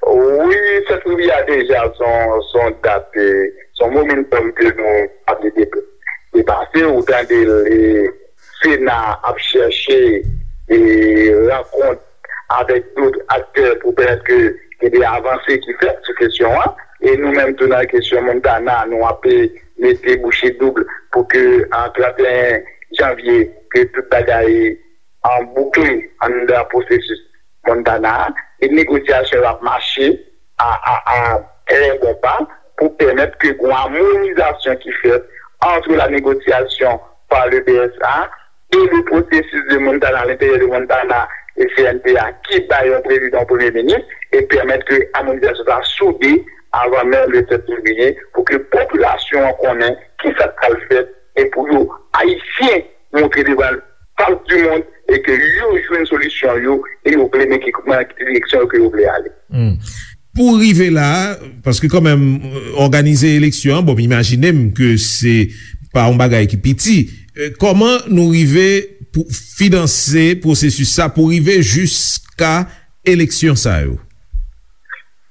Wi, sèt fevriye a deja se yon, se yon dat, eh, se yon momentum ke nou pa vle dep- depase. Ou tande l, eh, Sena ap chèche, eh, rankont avèk dòt aktè pou pèmèt ke gen de avanse ki fèt sou kesyon an. E nou menm tou nan kesyon Montana, nou ap, eh, mete bouche doub pou ke an trannteyen janvye, ke tout bagay an boukle anndan pwosesis Montana a, e negosyasyon yo ap mache a, a, a trè bon pa pou pèmèt ke gon amonizasyon ki fèt entre la négociation par le B S A et le processus de Montana, à l'intérieur de Montana et C N T A, ki bay yon prezidan, yon premye minis, e pèmèt ke amonizasyon sa soude avan menm le sèt fevriye, pou ke popilasyon an konnen ki sa k pral fèt, e pou yo, Ayisyen, montre devan fas di mond e ke yo jwenn solisyon yo e yo vle men ki, men ki direksyon yo ke yo vle ale. Pou rive la, paske kanmenm, òganize eleksyon an, bon, m imajine m ke se pa yon bagay ki piti. Eh, kòman nou rive pou finanse pwosesis sa pou rive jiska eleksyon sa yo?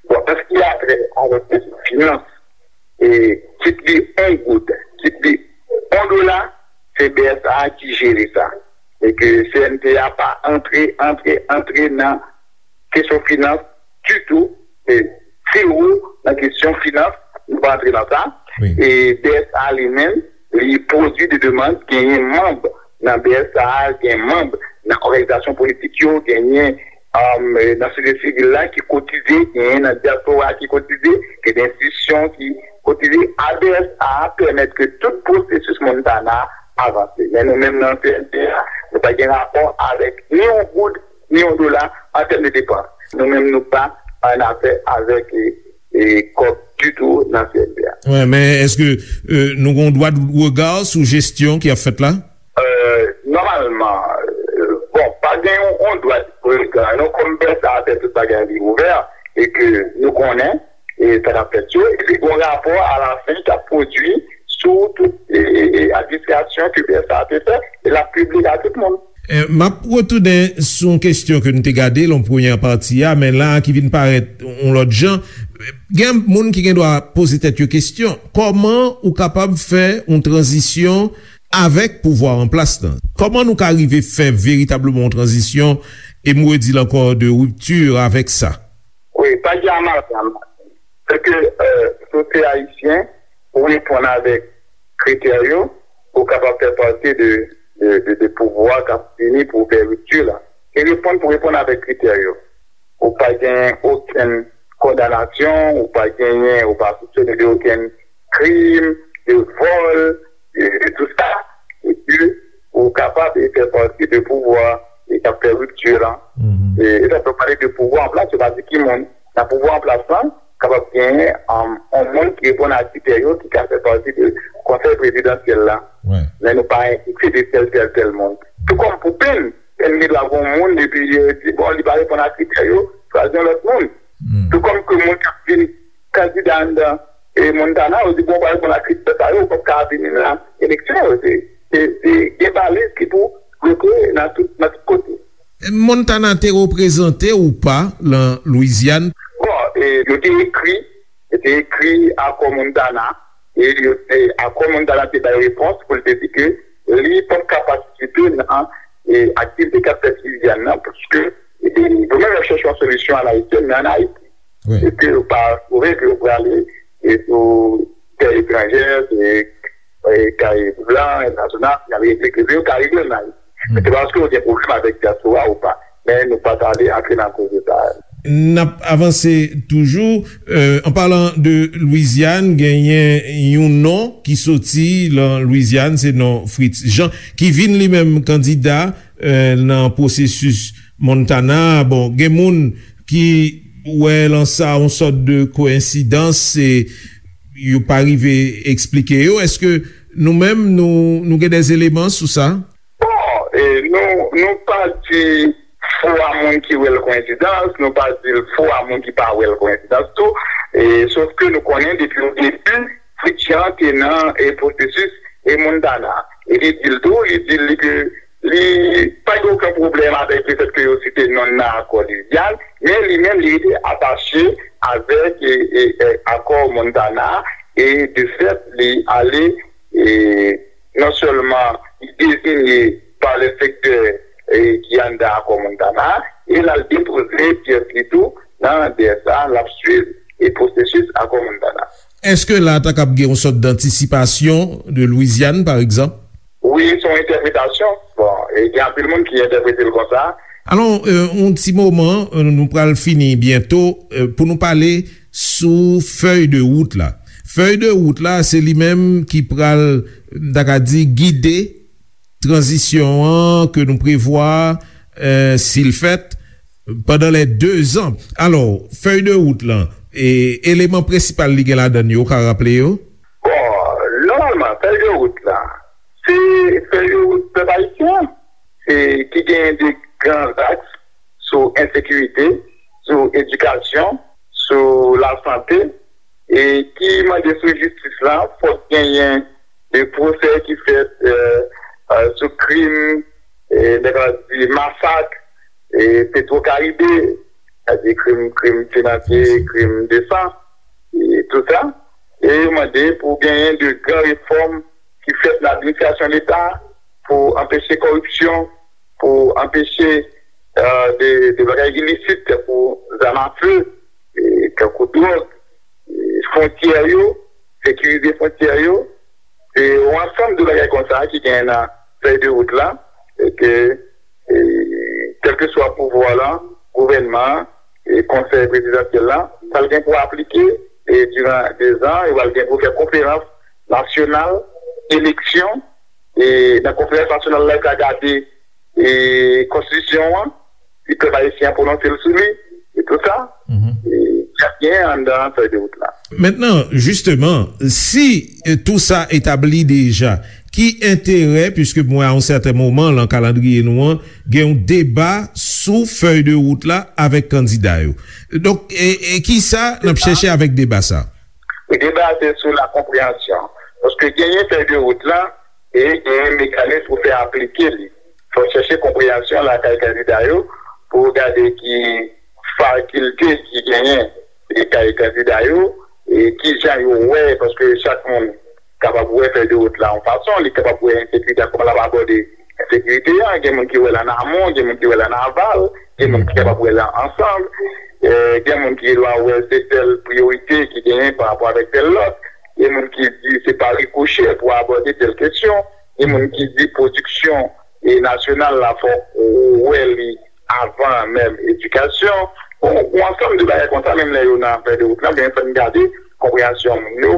Bon, an se ki a trè avèk kesyon finans, e kit li yon goud, kit li yon dola, se B S A ki jere sa. E ke C N T A pa antre, antre, antre nan kesyon finans ditou. E zewo nan kesyon finans, nou pa antre nan sa. E B S A li menm, li pwodui de demann, genyen manm nan B S A, gen manm nan òganizasyon politik yo, genyen, um, nan sosyete sivil la ki kotize, genyen nan dyaspora ki kotize, gen de enstitisyon ki kotize. A B S A pèmèt ke tout pwosesis Montana avanse. Men nou menm nan C N T A, nou pa gen rapò avèk ni yon goud, ni yon dola an tèm de depans. Nou menm nou pa an afè avèk, e, e, kòb ditou nan C N T A. Wi, men èske, euh, nou gon dwa de rega sou jesyon ki ap fèt la? Euh, nòmalman, euh, bon, pa gen yon, yon dwa de rega, non, kòm B S A fè tout bagay li ouvè, e ke nou konnen, e sa k ap fèt yo, epi gon rapò alafen k ap pwodui sou tout, e, e, e, administrasyon ke B S A te fè, e l ap pibliye a tout moun. Eh, m ap retounen sou yon kesyon ke n te gade lan premyè pati a, men la ki vin parèt yon lòt jan. Gen moun ki gen dwa poze tèt yo kesyon, kòman ou kapab fè yon tranzisyon avèk pouvwa an plas lan? Kòman nou ka rive fè veritableman yon tranzisyon, e m redi l ankò, de ripti avèk sa? Wi, pa gen amalgam. Se ke, euh, si w se ayisyen, ou reponn avèk kritè yo, ou kapab fè pati de, de, de, de pouvwa k ap vini pou fè ripti la. Se reponn pou reponn avèk kritè yo. Ou pa genyen okenn kondanasyon, ou pa genyen, ou pa soupsone de okenn krim, de vòl, de, de tout sa, epi ou kapab e fè pati de pouvwa e k ap fè ripti lan. E, e sa fè pale de pouvwa an plas, yo pa di ki moun. Nan pouvwa an plas lan, kapab genyen, um, yon moun ki reponn a kritè yo, ki ka fè pati de konsèy prezidansyèl la. Men nou pa enfikse de tèl, tèl, tèl moun. Tou kòm pou Pèn, Gen dwa gen yon moun, epi yo di, bon, li pa reponn a kritè yo, chwazi yon lòt moun. Tou kòm ke moun k ap vin kandida anndan e Montana, yo di, bon, w pa reponn a kritè sa yo, ou p ap ka vini nan eleksyon yo. Se, se, se gen baliz ki pou bloke nan tout, nan tout kote. Montana te reprezante ou pa nan Lwizyàn? Bon, e, yo te ekri, yo te ekri akò Montana, e yo, e, akò Montana te bay repons pou l te di ke li p ap ka patisipe nan, e, aktivite k ap fèt Lwizyàn nan, paske, e, yo menm y ap chèche yon solisyon a la ayisyèn, men ann Ayiti. Wi. E ke yo pa twouve ke yo prale, e, sou tè etranjè, se, e, Karayib lan, entènasyonal, y ap regle kriz yo, Karayib yo nan. Men se pa paske yo gen pwoblèm avèk dyaspora ou pa. Men nou pa t ale antre nan koze sa a. N ap avanse toujou. Euh, an palan de Lwizyàn, genyen yon non ki soti lan Lwizyàn, se non Fritz Jean, ki vin li menm kandida, euh, nan pwosesis Montana. Bon, gen moun ki wè lan sa yon sòt de koyensidans, e yo pa rive eksplike yo. Èske nou menm, nou, nou gen dè eleman sou sa? Bon, e, nou, nou pa di fo a moun ki wè l koyensidans, nou pa di l fo a moun ki pa wè l koyensidans tou. E, sof ke nou konnen depi o debi, Fritz Jean te nan, e, pwosesis, e, Montana. E li di l tou, li di l ke li pa gen okenn pwoblèm avèk lefèt ke yo site non l nan akò Lwizyàn, men li menm li rete atache avèk, e, e, e, akò Montana, e de fèt li ale, e, non sèlman li deziye pa lè sektè, e, ki anndan akò Montana, e l al depoze pyès li tou nan D S A, l ap swiv, e, pwosesis akò Montana. Èske la ta kab gen yon sòt dantisipasyon de Lwizyàn, pa egzanp? Wi, se yon entèpretasyon. Bon, e gen anpil moun ki entèprete l konsa. Alò, euh, yon ti moman, euh, nou pral fini byento, euh, pou nou pale sou fèy de wout la. Fèy de wout la, se li menm ki pral, m ta ka di, gide tranzisyon an ke nou prevwa, euh, si l fèt, pandan lè dezan. Alò, fèy de wout lan, e eleman prensipal li gen ladan l yo, ou ka raple yo? Bon, nòmalman, fèy de wout la, se fèy de wout pèp ayisyen an, se ki genyen de gran zaks sou ensekirite, sou edikasyon, sou lasante, e ki mande sou jistis la, fòk genyen de pwosè ki fèt, e, e, sou krim, e, nèg la di masak, e, Petro Caribe, sètadi krim, krim finansye, krim de san, e tout sa. E yo mande pou genyen de gran refòm ki fèt nan administrasyon Leta pou anpeche kòripsyon, pou anpeche, e, de, de bagay ilisit tankou zam afe, e, tankou dwòg, e, fwontyè yo, sekirize fwontyè yo. Se yon ansanm de bagay konsa ki genyen nan fèy de wout la, e ke, e, kèlkeswa pouvwa la, gouvènman an, e konsèy prezidansyèl la, pral gen pou aplike, e diran dezan, e pral gen pou fè konferans nasyonal, eleksyon, e nan konferans nasyonal la, yo ka gade, e konstitisyon an, si pèp ayisyen an pwononse l sou li, e tout sa, e y ap genyen anndan fèy de wout la. Mentnan, jisteman, si, e, tou sa etabli deja, ki enterè, piske m wè a yon sèten moman lan kalandriye nou an, gen yon deba sou fèy de wout la avèk kandida yo. Donk, e, e kisa n ap chèche avèk deba sa? E deba se sou la konpreyansyon. Paske genyen fèy de wout la, e genyen mekanis pou fè aplike li. Fò chèche konpreyansyon lakay kandida yo pou gade ki fakilte ki genyen lakay kandida yo, e kijan yo wè, paske chak moun kapab wè fèy de wout la yon fason, li kapab wè ensekirite a, kòman l ap abòde ensekirite a, gen moun ki wè l an amon, gen moun ki wè l an aval, gen moun ki kapab wè l ansanm, e, gen moun ki dwa wè se tèl priyorite ki genyen pa rapò avèk tèl lòt, gen moun ki di se pa rikochè pou abòde tèl kesyon, gen moun ki di pwodiksyon, e, nasyonal la, fòk ou wè li avan menm edikasyon. Bon, yon ansanm de bagay konsa, menm lè yo nan fèy de wout la, men fò n gade konpreyansyon moun yo,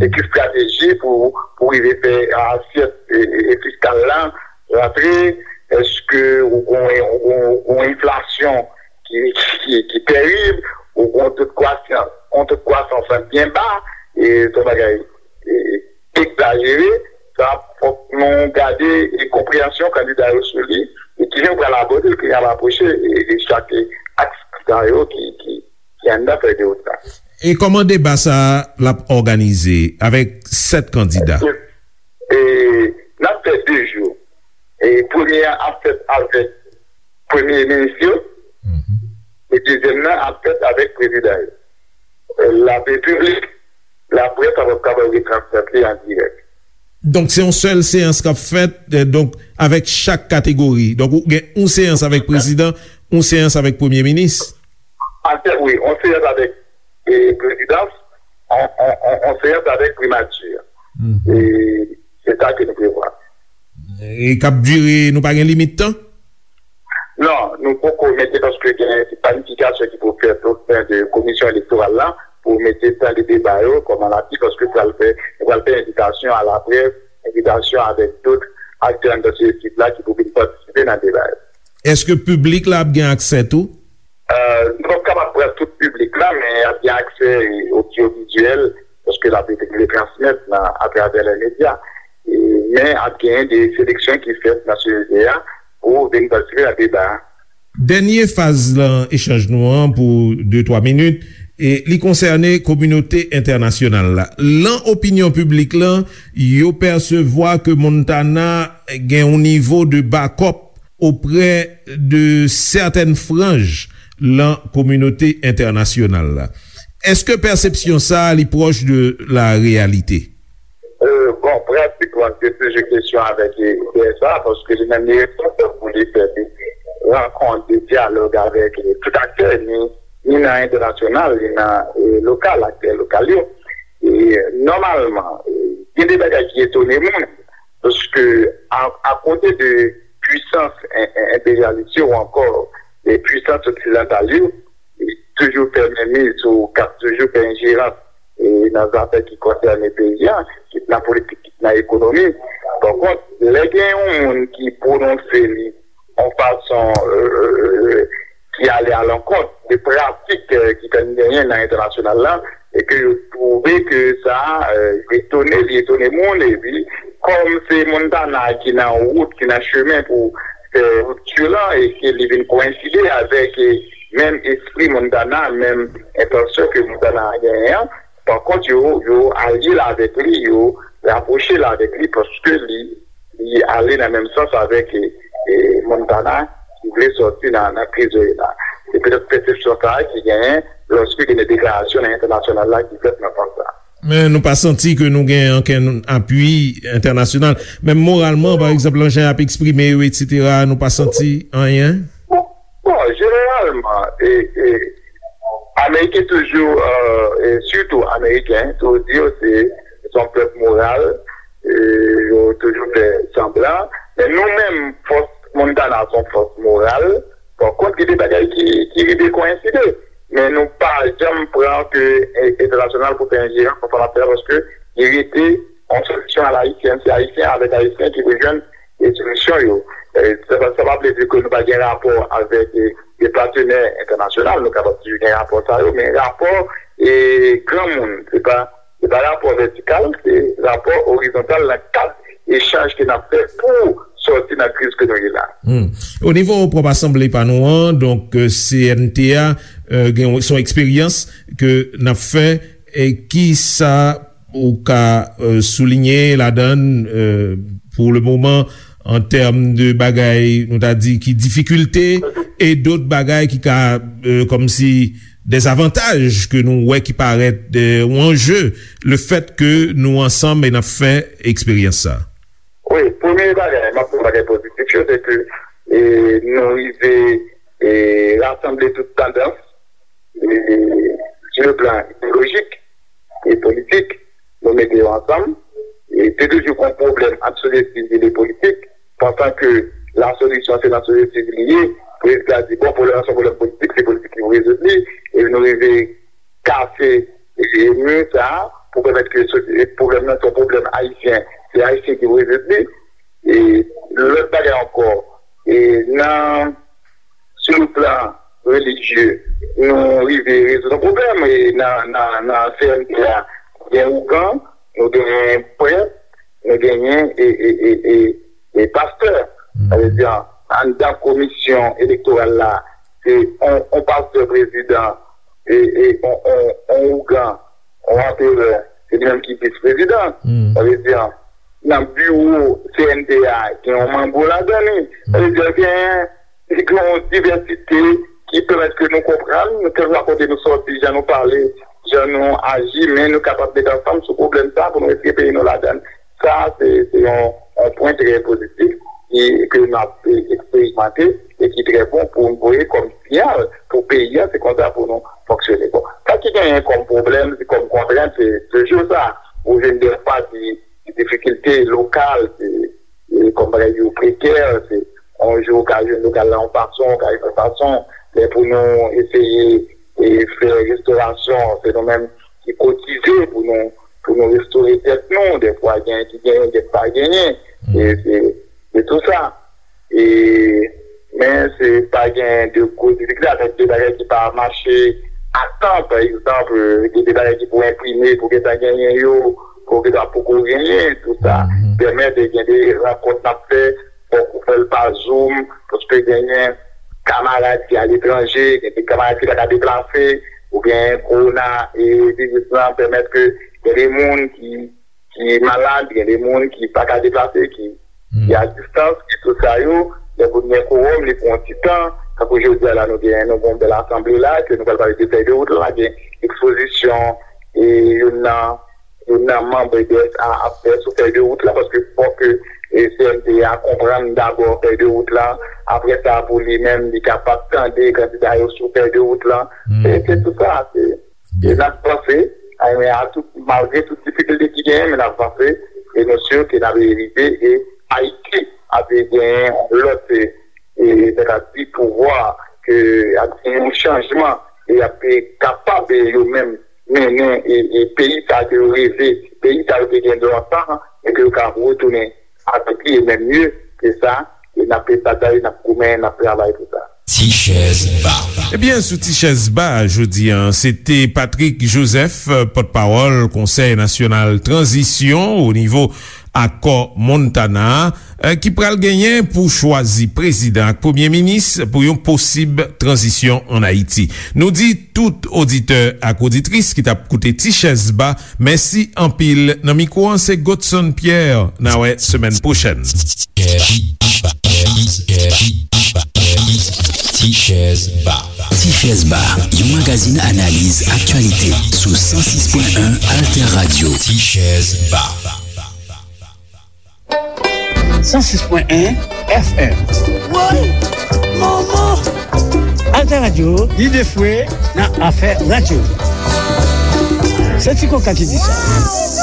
e ki estrateji pou, pou rive fè asyèt, e, e, e fiskal la rantre, èske ou gon, ou gon, ou gon enflasyon ki, ki, ki tèrib, ou gon to de kwasans, yon to de kwasans byen ba, e se yon bagay, e, egzajere, sa fòk nou gade e konpreyansyon kandida yo sou li, E kijan w pral abòde l, kijan w ap apwoche e, e chak aks sa yo ki, ki, ki anndan fè de wot la. E kòman deba sa a l ap òganize avèk sèt kandida? E n ap fè de jou. E premye a ap fèt avèk premye minis yo, e dezyèm nan ap fèt avèk prezidan yo. E, la piblik, laprès ap kapab retransmèt li an dirèk. Donk, se yon sèl seyans k ap fèt, e, donk, avèk chak kategori. Donk, ou gen yon seyans avèk prezidan, yon seyans avèk premye minis. An fèt, wi, yon seyans avèk, e, prezidans, yon, yon, yon, yon seyans avèk primati. E se sa ke nou prevwa. E k ap dire, nou pa gen limit tan? Non, nou poko mete paske gen planifikasyon ki pou fèt o sen de komisyon elektoral la pou mete tan de deba yo kòman l ap ye, paske pral fè, nou pral fè envitasyon a laprès, envitasyon avèk dòt aktè anndan sosyetiv la ki pou vin patisipe nan deba yo. Èske piblik la ap gen aksè tou? E, nou p ap kapab pran tout piblik la, men y ap gen aksè odyovizyèl, paske l ap rete retransmèt nan, atravè lè medya. E, men ap gen de seleksyon ki fèt nan sosyete a pou vin patisipe nan deba a. Dènye faz lan echanj nou an pou de twa minit, e li konsène kominote entènasyonal la. Lan opinyon piblik lan, yo pèsevwa ke Montana gen yon nivo de bakòp oprè de sètèn franj lan kominote entènasyonal la. Èske pèsepsyon sa a li pwòch de la reyalite? E, bon, pratikman, se toujou kesyon avèk, e, D S A, paske li menm li responsab pou li fè de rankont, de dyalòg avèk, e, tout aktè, ni, ni nan entènasyonal, ni nan, e, lokal, aktè lokal yo. E, nòmalman, e, gen de bagay ki etone moun, paske a, akote de pwisans en, en, enperyalis yo ou ankò de pwisans oksidantal yo, ki toujou fè menmiz ou k ap toujou fè enjerans, e, nan zafè ki konsène peyi a, kit nan politik, kit nan ekonomi. Pankont, lè gen yon moun ki pwononse li yon fason, e, ki ale alankont de pratik, e, ki konn genyen nan entènasyonal la, e ke yo twouve ke sa, e, etone, li etone moun, epi kòm se Montana ki nan wout, ki nan chemen pou fè ripti lan, e ke li vin koyenside avèk, e, menm espri Montana, menm entansyon ke Montana genyen an, pankont, yo, yo alye l avèk li, yo rapwoche l avèk li, paske li, li ale nan menm sans avèk, e, e, Montana ki vle sòti nan, nan kriz yo ye la. Se petèt pèsepsyon sa a ki genyen lòske gen de deklarasyon nan entènasyonal la ki fèt nan sans sa a. Men nou pa santi ke nou gen ankenn apui entènasyonal. Menm moralman, pa egzanp, nan jan y ap eksprime yo, etsetera, nou pa santi anyen? Bon, bon, jeneralman, e, e, Ameriken toujou, e, e sitou Ameriken, toujou di yo se, se yon pèp moral, e, yo toujou fè sanblan. Men nou menm, fòs Montana se yon fòs moral. Pankont, gen de bagay ki, ki rive koyenside. Men nou pa janm pran ke, e, entènasyonal pou fè enjerans nan sa n ap fè a, paske li rete yon solisyon alayisyèn. Se Ayisyen avèk Ayisyen ki pou jwenn, e, solisyon yo. E, sa, sa, sa pa vle di ke nou pa gen rapò avèk, e, de patenè entènasyonal, nou kapab toujou gen rapò sa yo, men rapò, e, granmoun, se pa, se pa rapò vètikal, se rapò orizontal nan kad echanj ke n ap fè pou sòti nan kriz ke nou ye la. Hmm. O nivo pwòp asanble pa nou an, donk, e, C N T A, e, gen, se yon eksperyans ke n ap fè, e ki sa ou ka, e, soulinye ladan l, e, pou le moman, an tèm de bagay, nou ta di, ki difikilte, e dòt bagay ki ka, e, kòmsi, dezavantaj ke nou wè ki parèt, e, yon anje, le fèt ke nou ansanm e n ap fè eksperyans sa? Wi, premye bagay, m ap pran bagay pozitif yo, se ke, e, nou rive, e, rasanble tout tandans, e, sou le plan ideyolojik e politik, nou mete yo ansanm. E te toujou gen yon pwoblèm ant sosyete sivil e politik, pansan ke la solisyon se nan sosyete sivil li ye. Prezidan di, bon, pwoblèm nan se yon pwoblèm politik, se politik ki pou rezoud li. E nou rive kase, e, mi sa a pou pèmèt ke sosyete, pwoblèm nan se yon pwoblèm ayisyen, se Ayisyen ki pou rezoud li. E lòt bagay ankò, e nan, sou le plan relijye, nou rive rezoud yon pwoblèm, e nan, nan, nan C N T A, gen ougan, nou genyen prèt, nou genyen, e, e, e, e, e pastè. Sa vle di, anndan komisyon elektoral la, se on, on pastè prezidan, e, e on, on, on ougan, on anperè, se li menm ki vis prezidan. Sa vle di, nan biwo C N T A, gen yon mango ladan li. Sa vle di, gen, gen yon divèsite ki pèmèt ke nou konprann, kèlkeswa kote nou sòti, jan nou pale, jan nou aji, men nou kapab met ansanm sou pwoblèm sa pou nou retire peyi nou ladan. Sa, se, se yon, yon pwen trè pozitif ki, ke n ap eksperimante e ki trè bon pou nou voye kòm siyal pou peyi a, se konsa pou nou fonksyone. Bon, sa ki genyen kòm pwoblèm, se kòm kontrent, se toujou sa. Ou jwenn defwa di, di difikilte lokal, se, e kòm bagay yo prekè, se yon jou ou ka jwenn lokal la yon fason, ou ka jwenn yon fason, men pou nou eseye e fè restorasyon, se nou menm ki kotize pou nou, pou nou restore tèt nou. Dèfwa, gen ki genyen, gen ki pa genyen. E se, se tou sa. E, men se pa gen de gwo difikilte avèk de bagay ki pa mache a tan, pa egzanp, gen de bagay ki pou enprime, pou gentan genyen yo, pou gentan poko genyen, tou sa. Pèmèt de gen de rankont n ap fè, fòk ou fè l pa Zoom, paske genyen kamarad ki aletranje, gen de kamarad ki pa ka deplase, oubyen kowona e viris lan pèmèt ke gen de moun ki, ki malad, gen de moun ki pa ka deplase, ki, ki a distans, ki tout sa yo, lè pou n gen kowòm, li pran yon ti tan, tankou jodi a la, nou gen, nou gen yon bèl asanble la, ke nou pral pale de fèy de wout la, gen ekspozisyon, e youn nan, youn nan manm B D S A ap fè sou fèy de wout la, paske fòk ke, e, C N T A konprann dabò fèy de wout la, apre sa, pou li menm, li kapab tande kandida yo sou fèy de wout la. Se, se tout sa, se, e n ap vanse, a, men a tout, malgre tout difikilte ki genyen, men n ap vanse, e nou si ke n ap rive, e Ayiti ap genyen yon lòt, e, e, sètadi pouvwa, ke ap gen yon chanjman, e ap kapab, e, yo menm mennen, e, e, peyi sa ke yo reve, peyi sa yo te gen lontan, e ke yo ka retounen avèk li, e menm mye ke sa, e n ap batay, n ap goumen, n ap travay pou sa. Ti chèz ba. Ebyen, sou Ti chèz ba, jodi a, se te Patrick Joseph, pòtpawòl Konsèy Nasyonal Tranzisyon o nivo Akò Montana a, eh, ki pral genyen pou chwazi prezidan ak premye minis pou yon posib tranzisyon ann Ayiti. Nou di tout oditè ak oditris ki t ap koute Ti chèz ba, mèsi anpil. Nan mikwo an, se Godson Pierre. N a wè semèn pwochèn. Ti chèz ba. Ti chèz ba, yon magazin analiz aktyalite sou san sis pwen en Alter Radio. Ti chèz ba. San sis pwen en F M. Woy! Manman! Alter Radio, lide fwe nan afè radyo. Se Ti Koka ki di sa.